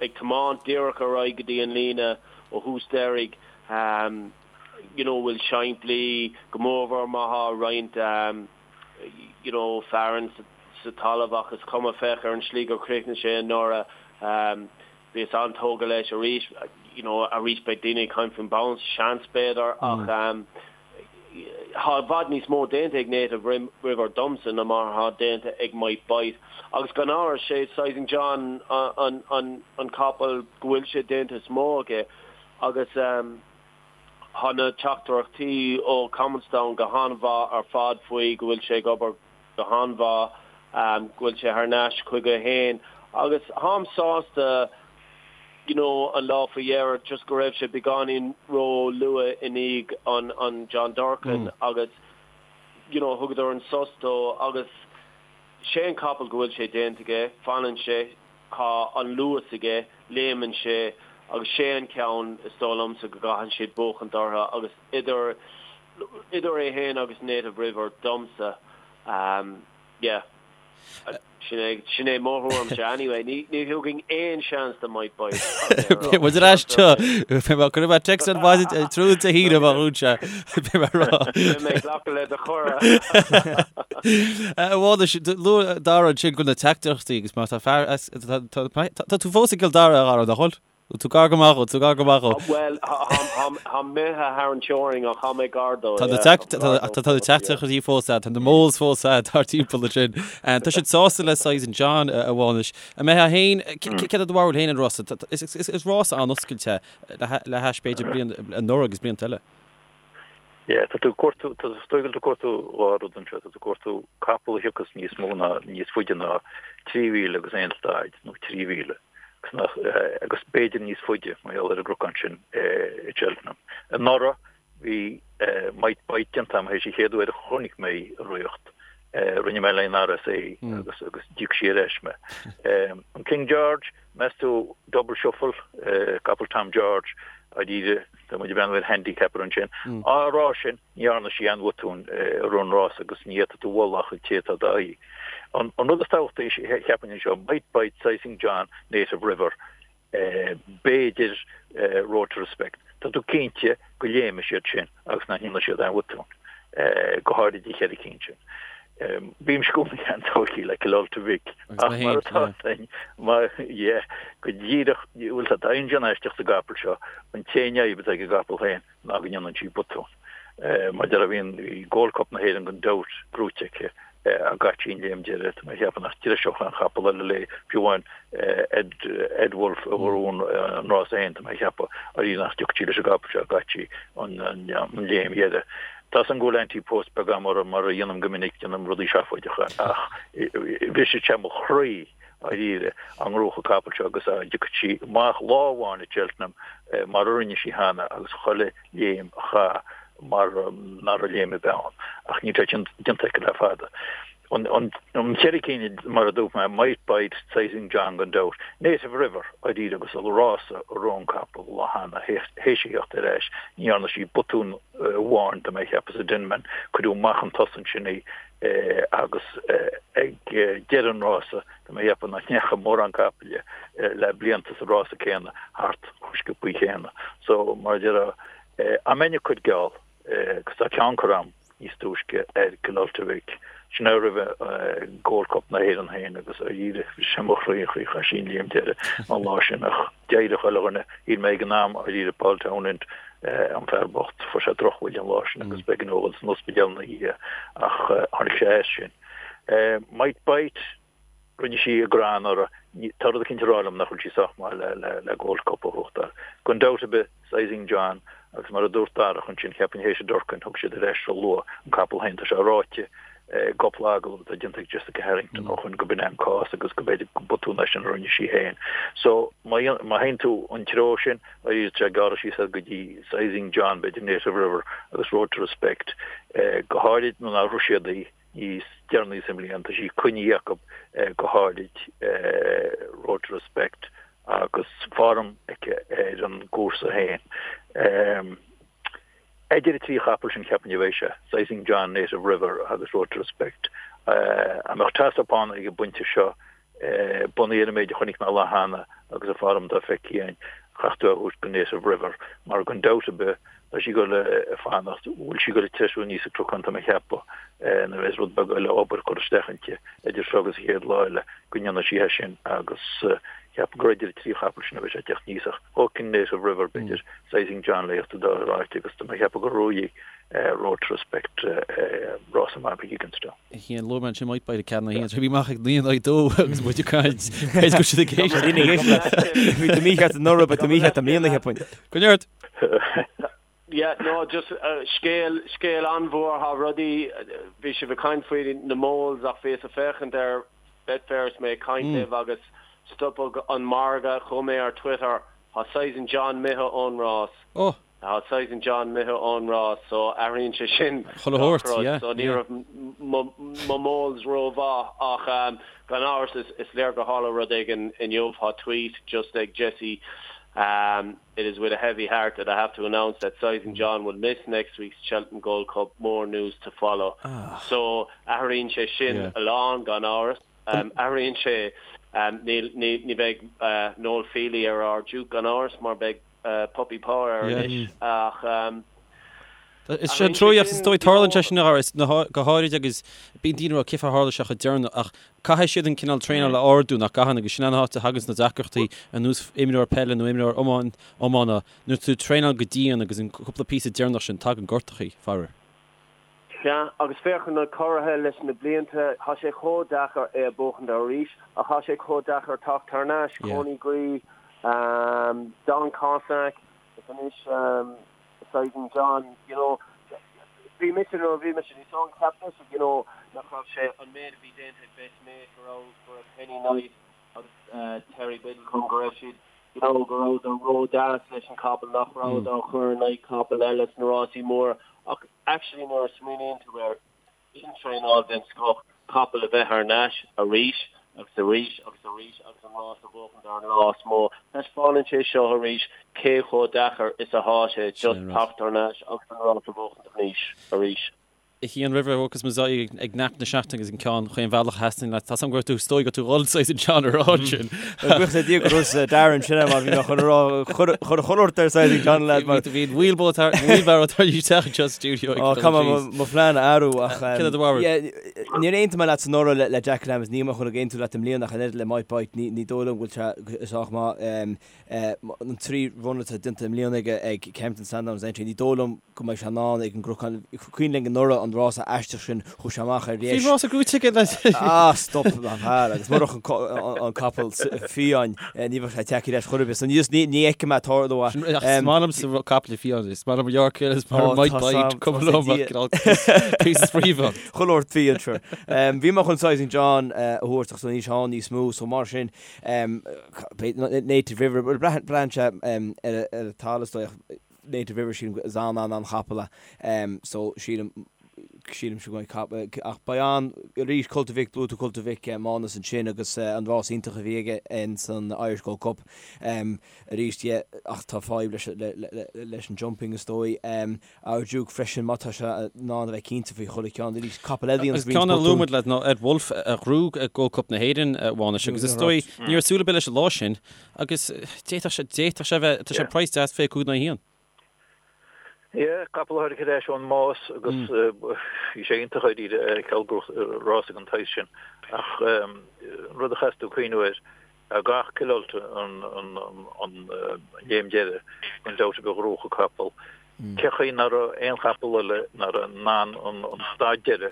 ag tiomáint díreach ar aghaidh go dtí an líne ó thús deiridh, you know, bhfuil simplí, go mórmhór má thá roinnt, you know, fearann sa talamh ach is cuma, féach ar an slí gur chríochnaigh sé anuraidh. Bhíos an-tógtha leis arís, you know, arís beidh daoine ag caint faoin bounce, seans b'fhéidir, ach tá i bhfad níos mó déanta ag Native River domsa ná mar atá déanta ag Might Bite. Agus gan amhras, sé Sizing John an, an, an capall go bhfuil sé déanta is mó aige agus tá na teachtaireachtaí ó Cuminestown go han-mhaith ar fad faoi go bhfuil sé ag obair go han-mhaith go bhfuil sé thar n-ais chuige féin agus tháim sásta you know an lá faoi dheireadh just go raibh sé beagáinín ró luath i ndiaidh an an John Durkan agus you know thugadar an sos dó agus sé an capall go bhfuil sé déanta aige, fanann sé, tá an luas aige, léimeann sé agus sé an ceann is dóigh liomsa go gcaitheann siad buachaint orthu agus idir Idir é féin agus Native River domsa, yeah. Sin é, sin é mo thuairimse anyway. Ní, ní thugfainn aon seans do Might Bite. Beidh muid ar ais anseo. Beidh mé, cuirfidh mé text ar maidin tráthnóna Dé hAoine má dhún sé. Beidh mé ag rá. Beidh mé ag glacadh le do chuireadh. A Mhánais, luaigh Dara ansin go bhfuil na teachtaireachtaí agus má tá fear as, tá, tá, tá tú fós i gCill Dara, a Dhara, nach bhfuil? Bhfuil tú gar go maith dhó, tú gar go maith dhó. Bhuel, táim imithe thar an teorainn ach tá mé gar dó, yeah. Tá na teachtaireachtaí fós a'd, tá na moles fós a'd thart timpeall ansin. Tá siad sásta le Sizing John, a Mhánais. An mbeifeá féin, céard é do bharúil féin ar an rása? Is rás an-oscailte le hais b'fhéidir bliain anuraidh agus blianta eile. Yeah, tá tú ag cuartú, tá is dóigh go bhfuil tú ag cuartú dhá rud anseo, tá tú ag cuartú capall a thiocfas níos mó ná, níos faide ná 3 mhíle agus aon staid, nó 3 mhíle, agus nach, agus b'fhéidir níos faide mar gheall ar an gcnocán sin i Cheltenham. Anuraidh bhí Might Bite déanta agam théis an chéad uair a chonaic mé í i riocht, rinne mé le an RSA agus agus d'íoc sí ar ais mé. An King George, meas tú Double Shuffle, capall Tom George, dáiríre, Tá muid ag breathnú ar handicapper ansin. Á rá sin, ní dhearna sí aon bhotún i rith an rása agus ní fhéadfaidh tú a mholadh ach an té atá d'aghaidh. An rud is tábhachtaí, cheapfainn anseo, Might Bite, Sizing John, Native River, b'fhéidir Road to Respect. Tá tú cinnte go léimfidh siad sin agus nach ndéanfaidh siad aon bhotún, go háirid an cheithre cinn sin. Bímse i gcónaí an-tógtha le Killultagh Vic ach mar atá féin, mar, yeah, go díreach, bhuel tá daingean aisteach sa gcapall seo, an t-aon fhadhb atá ag an gcapall féin ná go ndéanann sí botún. Mar a déarfá bhí Gold Cup na hÉireann gan dabht gnóite aici ach chaith sí an léim deiridh, tá mé ag ceapadh nach dtreiseodh aon chapall eile léi, fiú amháin Ed, Ed Wolfe a bhuaigh an rás féin, tá mé ag ceapadh, arís nach dtiocfadh sí leis an gcapall seo ach chaith sí an léim dheiridh. Tá 's agam go bhfuil ante-post beag agam orthu, mar a dhéanaim go minic, déanaim rudaí seafóideacha, ach bhrisfeadh sé mo chroí, dháiríre, dá ngnóthódh an capall seo agus dá dtiocfadh sí amach lá amháin i Cheltenham mar a rinne sí cheana agus chuile léim a chaith mar an dara léim a bheith ann. Ach níl sé sin déanta aici le fada. An cheithre cinn, mar a dúirt mé, Might Bite, Sizing John gan dabht, Native River, dáiríre agus an rása a rith an capall lá cheana, théis a theacht ar ais, ní dhearna sí botún amháin, tá mé a cheapadh sa Denman, cuireadh amach chun tosaigh ansin í agus ag deireadh an rása, tá mé a cheapadh nach ndeachaigh mórán capaill le blianta sa rása céanna thart chomh sciobthaí céanna. So, mar a déarfá, dá mbeinn ag cur geall, agus tá ceann curtha agam níos túisce ar Killultagh Vic. Sin é roimhe Gold Cup na hÉireann féin agus dáiríre bhris sé mo chroí an chaoi a chaith sí an léim deiridh an lá sin ach d'éirigh chuile dhuine, shíl mé ag an am dáiríre Paul Townend an fear bocht, fuair sé drochbhuille an lá sin agus b'éigean dó dhul san ospidéal ina dhiaidh ach tháinig sé as sin. Might Bite. Rinne sí a grá anuraidh. Tá rud eicínt ag rá liom nach bhfuil sí sách maith le Gold Cup a ghnóthachtáil. Gan dabht ar bith, Sizing John, agus mar a dúirt Darach ansin, cheapfainn théis an Durcan, thug siad ar ais ró-luath an capall féin. Tá sé ráite i gcúpla agallamh atá déanta ag Jessica Harrington ó shoin go b'in é an cás agus go b'fhéidir gur botún é sin a rinne sí féin. So, má théann tú an treo sin, arís tá sé ag gearradh síos go dtí Sizing John, b'fhéidir Native River agus Road to Respect, go háirid nuair nár rith siad í. níos deireanaí sa mbliain. Tá sí coinnithe acu go háirid Road to Respect agus form aici ar an gcúrsa féin. Idir an trí chapall sin cheapfainn a bheidh sé, Sizing John, Native River agus Road to Respect. An mbeadh toss-up ann ag an bpointe seo Bunaithe ar an méid a chonaic mé an lá cheana agus an form atá feicthe againn, chaithfeadh tú é a thabhairt go Native River mar gan dabht ar bith tá sí ag dul a fanacht, bhfuil sí ag dul ag treisiú aníos an cnocán tá mé a cheapadh nuair a bheas rud beag eile obair curtha isteach inti idir seo agus an chéad lá eile go ndéanfaidh sí é sin agus cheapfainn gur idir an trí chapall sin a bheidh sé ag teacht aníos ach thógfainn Native River b'fhéidir Sizing John le theacht dá ráite agus tá mé a cheapadh gur bhuaigh Road to Respect rása maith ag Gigginstown. 1, Luaigh mé ansin Might Bite ag 4 1, bhí amach ag 9 in 2 agus muid ag caint. B'fhéidir go raibh siad ag éisteacht. Daoine ag éisteacht leat. Bhí tú mícheart anuraidh, beidh tú mícheart i mbliana, cheapfainn. Go neart! Yeah, no, just scéal, scéal an-mhór, thá rudaí, bhí sibh ag caint faoi na moles ach bhíos ag féachaint ar Betfair is mé ag caint libh agus stopadh an margadh, chuaigh mé ar Twitter, thá Sizing John imithe ón rás. Oh! Tá Sizing John imithe ón rás so athraíonn sé sin Chuile gach shórt, rud. yeah, So ní yeah. raibh mo moles rómhaith ach gan amhras is léir gur tharla rud éigin inniu. Tá tweet just ag Jesse It is with a heavy heart that I have to announce that Sizing John will miss next week's Cheltenham Gold Cup, more news to follow. So athraíonn sé sin Yeah. a lán gan amhras. Athraíonn sé níl ní bheidh Noel Fehily ar ár Duke gan amhras mar beidh Puppy Power air anois ach Is sé an treoíocht is dóigh tarlaíonn sé sin go háirid agus bíonn daoine ag rá cén fáth ar tharla sé chomh deireanach ach caithfidh siad an cineál traenála a ardú nach gcaitheann agus sin an áit a thaganns na deacrachtaí ar nós imreoir peile nó imreoir iomána nuair tú ag traenáil go dian agus an cúpla píosa deireanach sin tagann gortachaí, faraor. Sea, agus féach ar na curaithe leis na blianta, tá sé chomh deacair é a bhuachaint arís, ach tá sé chomh deacair teacht thar n-ais, Coneygree, Don Cossack, is anois Sizing John, you know. Bhí mise nuair a bhí mise níos óige cheap mise you know nach raibh sé an méid a bhí déanta ag Best Mate go raibh go raibh Kenny Knight agus Terry Biddlecombe go raibh siad you know go rabhadar ró-deas leis an capall nach rabhadar á chur in aghaidh capall eile sna rásaí móra ach actually nuair a smaoiníonn tú air sin traenáil den scoth capall a bheith thar n-ais arís agus arís agus arís agus an rás a bhuachaint ar an lá is mó. Taispeánann sé seo arís cé chomh deacair is athá sé just teacht thar n-ais agus an rás a bhuachaint arís arís. A Chian roimh a thiocfas muid ag nap na seachtaine agus an ceann chaon bhealach a theastaíonn leat. Tá 's agam go raibh tú is dóigh go raibh tú dhul saghas an ceann a rá ansin. Buíochas le Dia go raibh Darren sin mar bhí mé chun a rá chuir chuile shórt ar Sizing John lad mar. Bhí an wheelbarrow tar wheelbarrow tar éis teacht anseo sa stiúideo ag dul Caithfidh mé mo phlean a athrú ach Céard é do bharúil? Níor aontaigh mé leat anuraidh le Jack Adams, níl mé chun ag aontú leat i mbliana ach an oiread le Might Bite ní dóigh liom go bhfuil sé sách maith. An 3 run atá déanta i mbliana aige ag Kempton, Sandown agus Aintree, ní dóigh liom go mbeidh sé in ann ag an gCnocán. Cuimhin linn anuraidh an rása aisteach sin, chuaigh sé amach ar dheis. Bhí rása gnóite aige leis. Ah, stop, a fhear, agus murach an capall fiáin, ní bheadh sé tagtha ar ais chor ar bith. So ní fheicim é ag tarlú. Ach is maith liomsa capall fiáin, is maith liom York Hill, is maith liom Might Bite, cuma liom ach cineál píosa spraoi ann. Chuile shórt fiáin, sure. Bhí mé chun Sizing John a thabhairt ach níl sé ann níos mó, so mar sin, Native River, braitheann sé ar an talamh is dóigh ach Native River sílim is an-an-an-chapall é so sílim sílimse go mbeidh ach beidh an arís Cult of Vic luaigh tú Cult of Vic Mánas ansin agus an rás iontach a bhí aige in san Irish Gold Cup arís yeah ach tá fadhb leis leis an jumping is dóigh. Our Duke freisin má tá sé in ann a bheith cinnte faoi chuile cheann arís. Capall eile a dhéanann roinnt Ceann a luaigh muid leat ná Ed Wolfe a ghnóthaigh Gold Cup na hÉireann, a Mhánais, agus is dóigh ní raibh súil ar bith leis an lá sin agus d'fhéadfadh sé, d'fhéadfadh sé a bheith, tá sé praghas deas 25 in aghaidh a haon. Yeah, capall a tháinig ar ais ón mbás agus bhí sé iontach dáiríre a fheiceáil ag rás ag an tsaghas sin ach an rud a chaithfeas tú cuimhniú air gach Killultagh an léim deiridh, gan dabht ar bith ghnóthódh an capall. Cé chaoi nach raibh aon chapall eile nach raibh in ann an stad deiridh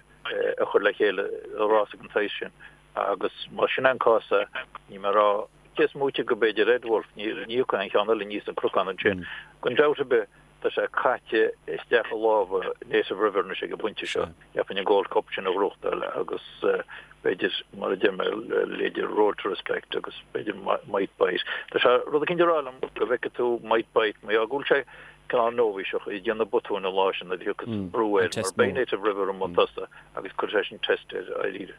a chur le chéile i rás den tsaghas sin agus más sin an cás é, níl mé ag rá cé is móite go b'fhéidir Ed Wolfe, ní thiocfaidh aon cheann eile aníos an cnocán ansin. Gan dabht ar bith, Tá sé caite isteach i lámha Native River anois ag an bpointe seo. Cheapfainn an Gold Cup sin a ghnóthachtáil agus b'fhéidir, mar a deir mé, leithéidí Road to Respect agus b'fhéidir Might Bite. Tá sé rud eicínt ag rá liom go bhfeicfidh tú Might Bite mar gheall go bhfuil sé cineál nóibhíseach ag déanamh botúin an lá sin nuair a thiocfas brú air mar beidh Native River i mbun tosaigh agus cuirfidh sé sin test air dáiríre.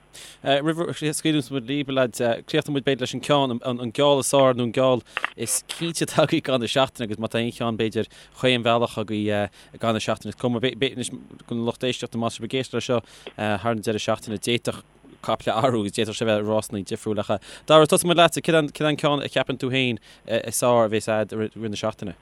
Roimh a scaoileanns muid libh, a leaids, críochnóidh muid b'fhéidir leis an ceann, an geall is fearr nó an geall is cinnte atá agaibh i gcaitheamh na seachtaine agus má tá aon cheann b'fhéidir chaon bhealach agaibh i gcaitheamh na seachtaine is cuma anois don lucht éisteachta más sibh ag éisteacht leis seo thar an deireadh seachtaine d'fhéadfadh caiple athrú agus d'fhéadfadh sé bheith rásanna difriúil ach Dara tosóidh muid leatsa, céard é an ceann a cheapann tú féin is fearr a bheas a'd i rith na seachtaine?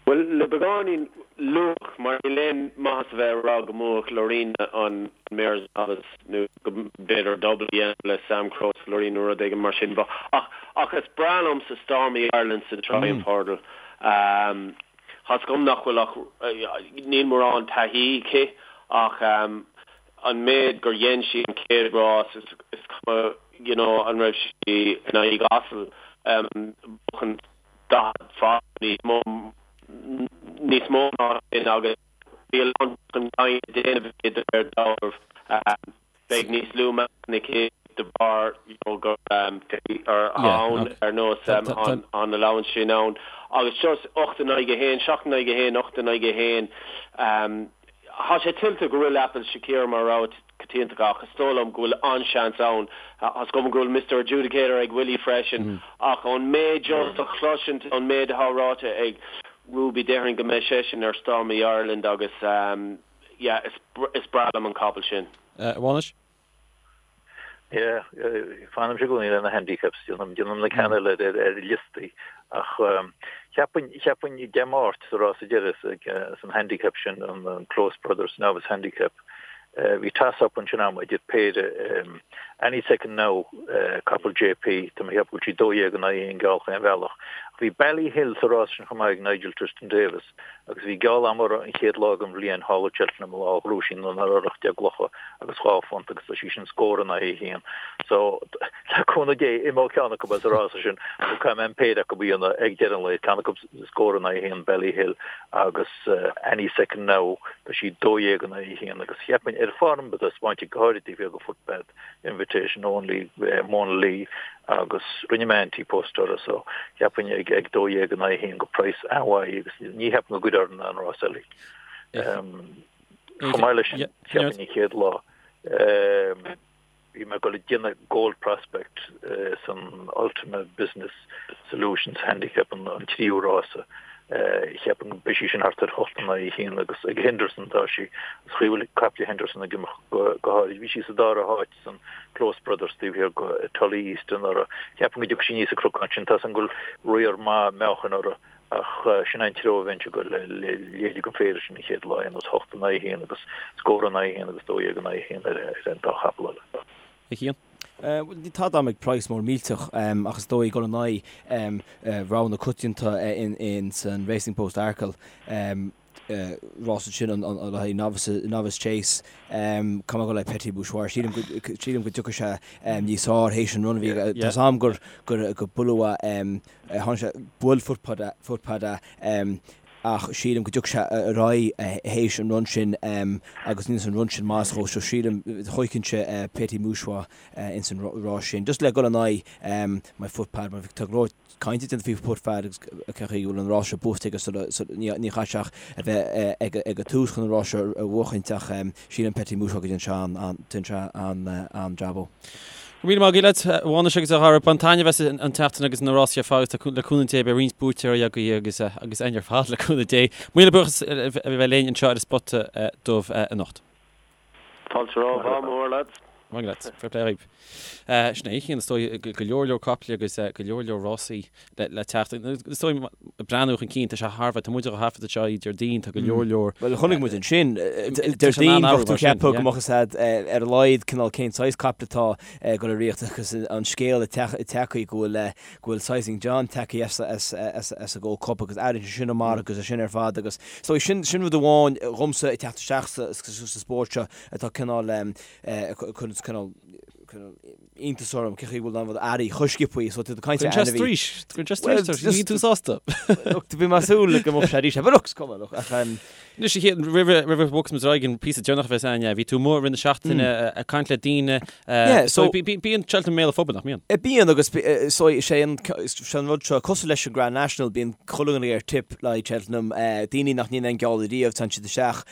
Bhuel, le beagáinín luach, mar níl aon maitheas a bheith ag rá go mbuafadh Lorena an Mares' Novice nó go mb'fhéidir double a dhéanamh le Samcro is Lorena nó rud éigin mar sin. Ach, ach is breá liomsa Stormy Ireland sa Triumph Hurdle. Tá's agam nach bhfuil ach, níl mórán taithí aici ach an méid gur dhein sí an chéad rás, is cuma, you know, an raibh sí in aghaidh asal, buachan 40 fad níos mó níos mó ná sin agus bhí a lán chun cinn le déanamh aici de réir dealraimh. Beidh níos lú meáchan aici de bharr you know gur ann ar nós an allowance sin ann agus just 8 in aghaidh 1, 7 in aghaidh 1, 8 in aghaidh 1. Tá sé tuillte go bhfuil Apple Shakira mar rogha coitianta ach is dóigh liom go bhfuil an-seans ann. Tá's agam go bhfuil Mister Adjudicator ag Willie freisin ach ón méid just a chloisint, ón méid atá ráite ag Ruby déarfainn go mbeidh seisean ar Stormy Ireland agus yeah is breá liom an capall sin. A Mhánais? Yeah, fanaimse i gcónaí le na handicaps, déanaim na ceanna eile ar liostaí ach cheapfainn, cheapfainn Dé Máirt sa rása deiridh san handicap sin, an Close Brothers Novice Handicap, bhí toss-up ansin a'm idir péire Any Second Now, capall JP, tá mé ag ceapadh go bhfuil sí 12 in aghaidh 1 geall chaon bhealach. Bhí Ballyhill sa rás sin chomh maith ag Nigel Twiston-Davies agus bhí geall agam uirthi an chéad lá den bhliain thall i Cheltenham an lá a ghnóthaigh sí an 18 gclocha agus £2 agus tá sí sin scór in aghaidh a haon. So, le cúnamh Dé, imeoidh ceann acu as an rása sin nó caithfidh mé an péire acu a dhéanamh ag deireadh an lae, ceann acu scór in aghaidh a haon Ballyhill agus Any Second Now, tá sí 12 in aghaidh a haon agus cheapfainn ar form atá spáinte go háirid taobh thiar de Footpath Invitation Only Monalee agus rinne mé ante-post uirthi so cheapfainn ag 12 in aghaidh a haon go praghas an-mhaith agus ní cheapaim go gcuirfear an rás eile. Chomh maith leis sin, cheapfainn an chéad lá, bhí mé ag dul ag déanamh Gold Prospect san Ultima Business Solutions Handicap an tríú rása. Cheapfainn go mbeidh sí sin thart ar 8 in aghaidh 1 agus ag Henderson atá sí. Is chaoi bhfuil caiple Henderson ag imeacht go háirid. Bhí sí sa dara háit san Close Brothers taobh thiar de Tully East anuraidh. Cheapfainn go dtiocfaidh sí aníos an cnocán sin. Tá 's agam go bhfuil riar maith meáchain uirthi Ach sin é an treo a bheinnse ag dul le leithéidí den phéire sin an chéad lá, ar nós 8 in aghaidh 1 agus scór in aghaidh 1 agus 12 in aghaidh 1 ar an dá chapall eile. A Chian? Bhuel, níl tada agam ag praghas mór millteach ach is dóigh dul in aghaidh rogha na coitianta in san Racing Post Arkle. Rás ansin an le haghaidh Novice Novice Chase. Caithfidh mé dul le Petit Mouchoir. Sílim go sílim go dtiocfaidh sé níos fearr théis an run a bhí aige. Tá 's agam gur gur gur buaileadh é tháinig sé bhuail Footpad é Footpad é ach sílim go dtiocfaidh sé ar aghaidh théis an run sin agus níl an run sin maith dhó so sílim thógfainnse Petit Mouchoir ins an rás sin. Just le dul in aghaidh my Footpad mar tá go leor cainte déanta faoi Footpad agus cén chaoi go bhfuil an rás seo buaite aige sula ní chaithfidh sé ach a bheith ag an tús chun an rás seo a bhuachaint ach sílim Petit Mouchoir go dtéann sé an-jab ó. Go raibh míle maith agat leat, a Mhánais agus a Dhara. Bain taitneamh as an tseachtain agus na rásaí ar fad agus tá le cúnamh Dé beidh roinnt buaiteoirí agaibh agus agus againn ar fad le cúnamh Dé. Míle buíochas a bheith linn anseo ar an Spota Dubh anocht. Fáilte romhat, ádh mór leat. Maith leat. Fair play dhaoib. Sin é, a Chian, is dóigh go leor leor caiple agus go leor leor rásaí le teacht. Is dóigh breathnú chun cinn, tá sé thar a bheith, tá muid á thaifead anseo Déardaoin, tá go leor leor. Bhuel, chonaic muid ansin, Déardaoin, bheadh tú ag ceapadh go mbeadh fhios a'd ar a laghad cineál cén saghas caiple atá ag dul ag rith agus an scéal tagtha go bhfuil go bhfuil Sizing John tagtha as as an Gold Cup agus airgead sin amach agus é sin ar fad agus so sin sin rud amháin dhomsa ag teacht isteach sa sa spórt seo atá cineál cuireann cineál iontas orm cén chaoi bhfuil an rud airí chomh sciobtha so tú ag caint ar ainmhí. Cuireann sé straois, cuireann sé straois ort, níl tú sásta. Look, bhí mé ag súil go mbeadh sé arís, but look, is cuma, look, ach Anois a Chian, roimh roimh a bhogfas muid ar aghaidh an píosa deireanach a bheas againn, bhí tú amuigh i rith na seachtaine ag caint le daoine, Yeah, so bíonn Cheltenham i mbéal an phobail, nach mbíonn? Bíonn agus so is é an sé an rud seo cosúil leis an Grand National, bíonn chuile dhuine ar tip le haghaidh Cheltenham, daoine nach ndéanann aon geall ariamh, téann siad isteach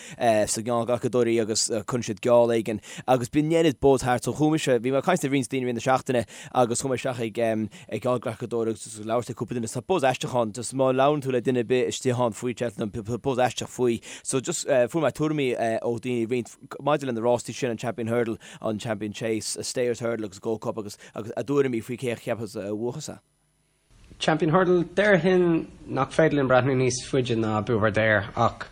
sna geallghlacadóirí agus cuireann siad geall éigin agus bíonn oiread buzz thart. So chuaigh mise, bhí mé ag caint le roinnt daoine i rith na seachtaine agus chuaigh mé isteach ag ag geallghlacadóir agus ag labhairt le cúpla duine. Tá buzz aisteach ann, just má labhrann tú le duine ar bith istigh ann faoi Cheltenham, tá buzz aisteach faoi. So just fuair mé tuairimí ó dhaoine roinnt maidir le na rástaí sin, an Champion Hurdle, an Champion Chase, Stayers Hurdle agus Gold Cup agus agus a dtuairimí faoi cé a cheapfas a bhuafas é. Champion Hurdle, déarfainn nach féidir linn breathnú níos faide ná Buveur d'Air ach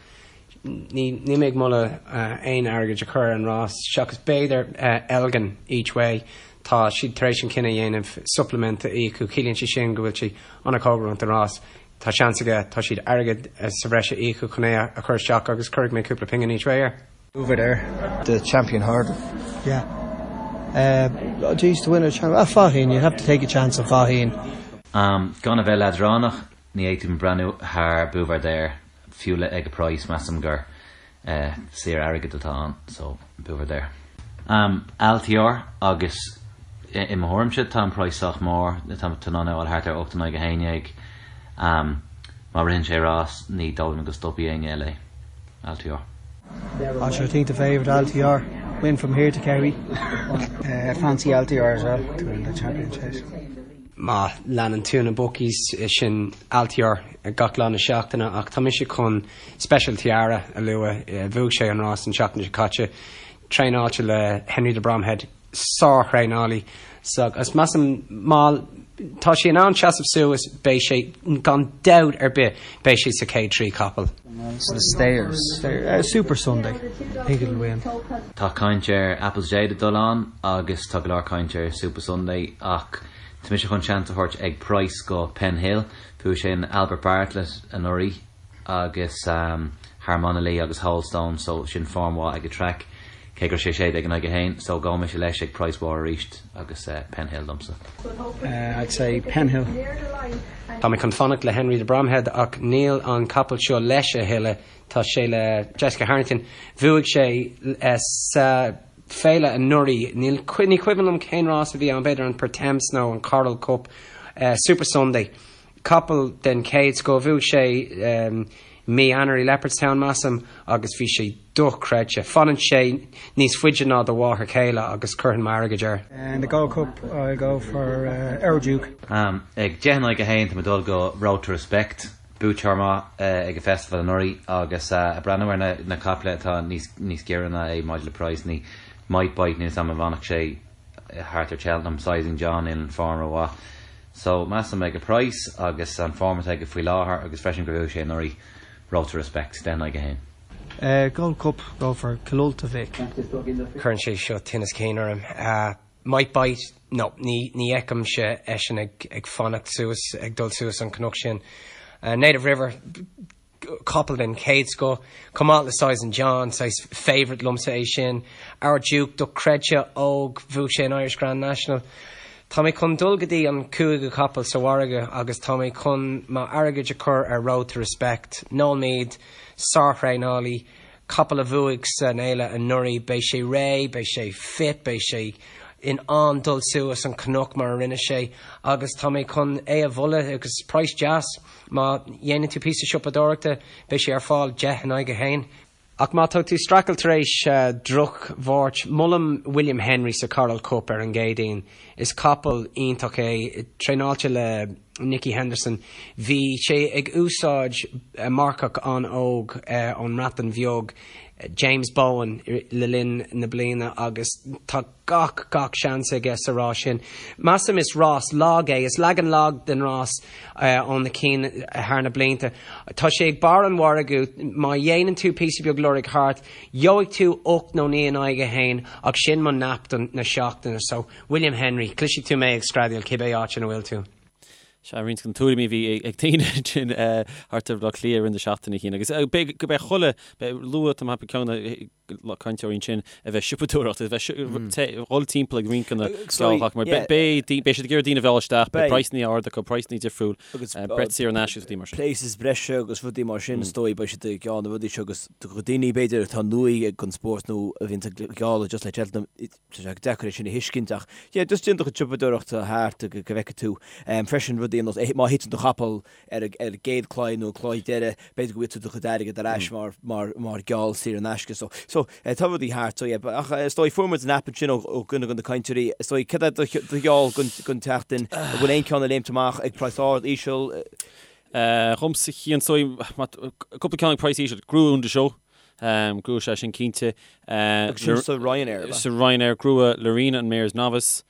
ní níl mé ag moladh aon airgead a chur ar an rás seachas b'fhéidir Elgin each way. Tá siad tar éis an cinneadh a dhéanamh supplement a íocadh, ciallaíonn sé sin go bhfuil sé an-chóngarach don rás. Tá seans aige, tá siad airgead sa bhreis a íocadh chun é a chur isteach agus cuirfidh mé cúpla pingin each way air. Buveur d'Air. The champion hurdle. Yeah. Uh, geez, to win a champion. Ah, Faugheen, you have to take a chance on Faugheen. Um, gan a bheith leadránach, ní fhéadfainn breathnú thar Buveur d'Air, fiú le ag a praghas, measaim gur eh, saor airgead atá ann, so Buveur d'Air. Um, Altior agus i, i mo thuairimse tá an praghas sách mór, tá tú in ann é a fháil thart ar 8 in aghaidh 11. Um, má ritheann sé rás, ní dóigh liom go stopfaidh éinne eile é. Altior. Ah sure I think the favourite Altior win from here to Kerry. Uh, fancy Altior as well to win the champion chase. Má leanann tú na bookies sin Altior gach lá na seachtaine ach tá mise chun Special Tiara a lua. Bhuaigh sé an rás an tseachtain seo caite. Traenáilte le Henry de Bromhead. sár-thraenálaí agus measaim má tá sé in ann seasamh suas beidh sé gan dabht ar bith beidh sé sa chéad 3 capall. The Stayers. Supasundae. I think it'll win. Tá caint ar Apple's Jade ag dul ann agus tá go leor caint ar Supasundae ach Tá mise chun seans a thabhairt ag price go Penhill. Bhuaigh sé an Albert Bartlett anuraidh agus thar Monalee agus Wholestone so sin form mhaith ag an traic cé go raibh sé 16 in aghaidh 1 so gabhfaidh mise leis ag price mhór arís agus Penhill domsa. I'd say Penhill. Tá mé chun fanacht le Henry de Bromhead ach níl an capall seo leis a thuilleadh, tá sé le Jessica Harrington. Bhuaigh sé sa féile anuraidh, níl, ní cuimhin liom cén rás a bhí ann, b'fhéidir an Pertemps nó an Coral Cup, Super Sunday. Capall den chéad scoth, bhuaigh sé mí Eanáir i Leopardstown, measaim, agus bhí sé dochreidte. Fanann sé níos faide ná do mháthair chéile agus cuirfinn m'airgead air. In the Gold Cup I'll go for Our Duke. Ag 10 in aghaidh 1 tá mé ag dul go Road to Respect, buaiteoir maith ag an Festival anuraidh agus ag breathnú ar na caiple atá níos giorra ná é maidir le praghsanna, Might Bite, níl 's a'm an bhfanfadh sé thart ar Cheltenham, Sizing John in form rómhaith. So, measaim ag an price agus an form atá aige faoi láthair agus freisin gur bhuaigh sé anuraidh, Road to Respect, 10 in aghaidh 1. Gold Cup, go for Killultagh Vic. Cuireann sé seo tinneas cinn orm. Might Bite, no, ní fheicimse eisean ag fanacht suas, ag dul suas an cnoc sin. Native River, capall den chéad scoth, chomh maith le Sizing John, saghas favourite liomsa é sin. Our Duke, dochreidte, óg, bhuaigh sé an Irish Grand National. Tá mé chun dul go dtí an cúigiú capall sa mhargadh agus tá mé chun m'airgead a chur ar Road to Respect. Noel Meade, sárthraenálaí, capall a bhuaigh san fhéile anuraidh, beidh sé réidh, beidh sé fit, beidh sé in ann dul suas an cnoc mar a rinne sé agus tá mé chun é a mholadh agus praghas deas. Má dhéanann tú píosa siopadóireachta, beidh sé ar fáil 10 in aghaidh 1. Ach má tá tú streachailt tar éis droch-Mháirt, molaim William Henry sa Coral Cup ar an gCéadaoin. Is capall iontach é, traenáilte le Nicky Henderson. Bhí sé ag úsáid marcach an-óg ón mBreatain Bheag, James Bowen, le linn na bliana agus tá gach, gach seans aige sa rás sin. Measaim is rás lag é, is leagan lag den rás ó na cinn thar na blianta. Tá sé ag barr an mhargaidh, má dhéanann tú píosa beag lorg thart, gheobhaidh tú 8 nó 9 in aghaidh 1 ach sin mo nap don na seachtaine so William Henry, cloisfidh tú mé ag screadaíl cibé áit ina bhfuil tú. Sea, roinnt de na tuairimí a bhí ag daoine ansin thart ar Bhaile Átha Cliath i rith na seachtaine sin. Agus beidh, go beidh chuile, beidh luath, tá mé ag ceapadh ceann de na cainteoirí ansin a bheith siopadóireacht, a bheith dhul timpeall ag roinnt de na gealltacha, mar beidh, beidh siad ag iarraidh daoine a mhealladh isteach, beidh praghsanna ard acu, praghsanna difriúil, breith saor in aisce agus rudaí mar sin. Places breise agus rudaí mar sin, is dóigh, beidh siad ag gealladh na rudaí seo agus do dhaoine b'fhéidir atá nua ag an spórt nó a bhíonn ag gealladh just le Cheltenham, Tá sé deacair é sin a thuiscint ach yeah just déan do chuid siopadóireachta thart go bhfeicfidh tú freisin rudaí ar nós má thiteann do chapall ar an gcéad claí nó an claí deiridh b'fhéidir go bhfaighidh tú do chuid airgid ar ais mar mar mar gheall saor in aisce so so tá rudaí thart so yeah ach is dóigh fuair muid an nap ansin ó ó dhuine de na cainteoirí is dóigh cad é do do gheall don don tseachtain an bhfuil aon ceann ag léimt amach ag praghas ard íseal? Dhomsa Cian is dóigh cúpla ceann ag praghas íseal Gnua Un de Sceaux. Gnua sé sin cinnte. Agus sin sa Ryanair, ab ea? Sa Ryanair, Gnua Lorena an Mares Novice.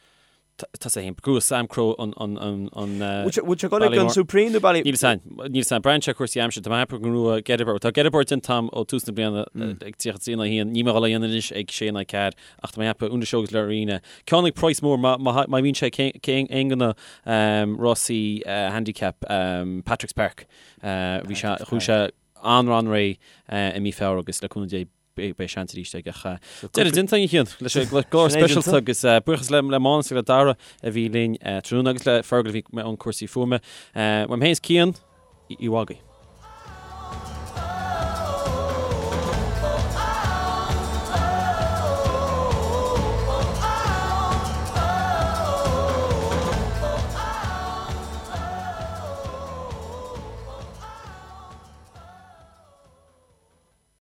Tá sé féin. Gnua Samcro an Bhfuil sé ag dul ag an Supreme nó Bally? Níl a fhios a'm. Níl a fhios a'm. Braitheann sé ar chúrsaí aimsire. Tá mé ag ceapadh go ngnua Gettysburg. Tá Gettysburg déanta a'm ó tús na bliana ag 33 in aghaidh 1. Níl mé ag dul a dhéanamh anois ag 6 in aghaidh 4 ach tá mé ag ceapadh Un de Sceaux agus Lorena. Ceann ag praghas mór má bhíonn sé aon de na rásaí handicap Patrick's Park. Bhí sé, chuaigh sé an-an-réidh i mí Feabhra agus le cúnamh Dé beidh seans arís aige. Ach deireadh déanta againn a Chian leis an gclár speisialta agus buíochas le Mánas agus le Dara a bhí linn tráthnóna agus le Fergal a bhí i mbun cúrsaí fuaime. Uaim féin is Cian, oíche mhaith agaibh.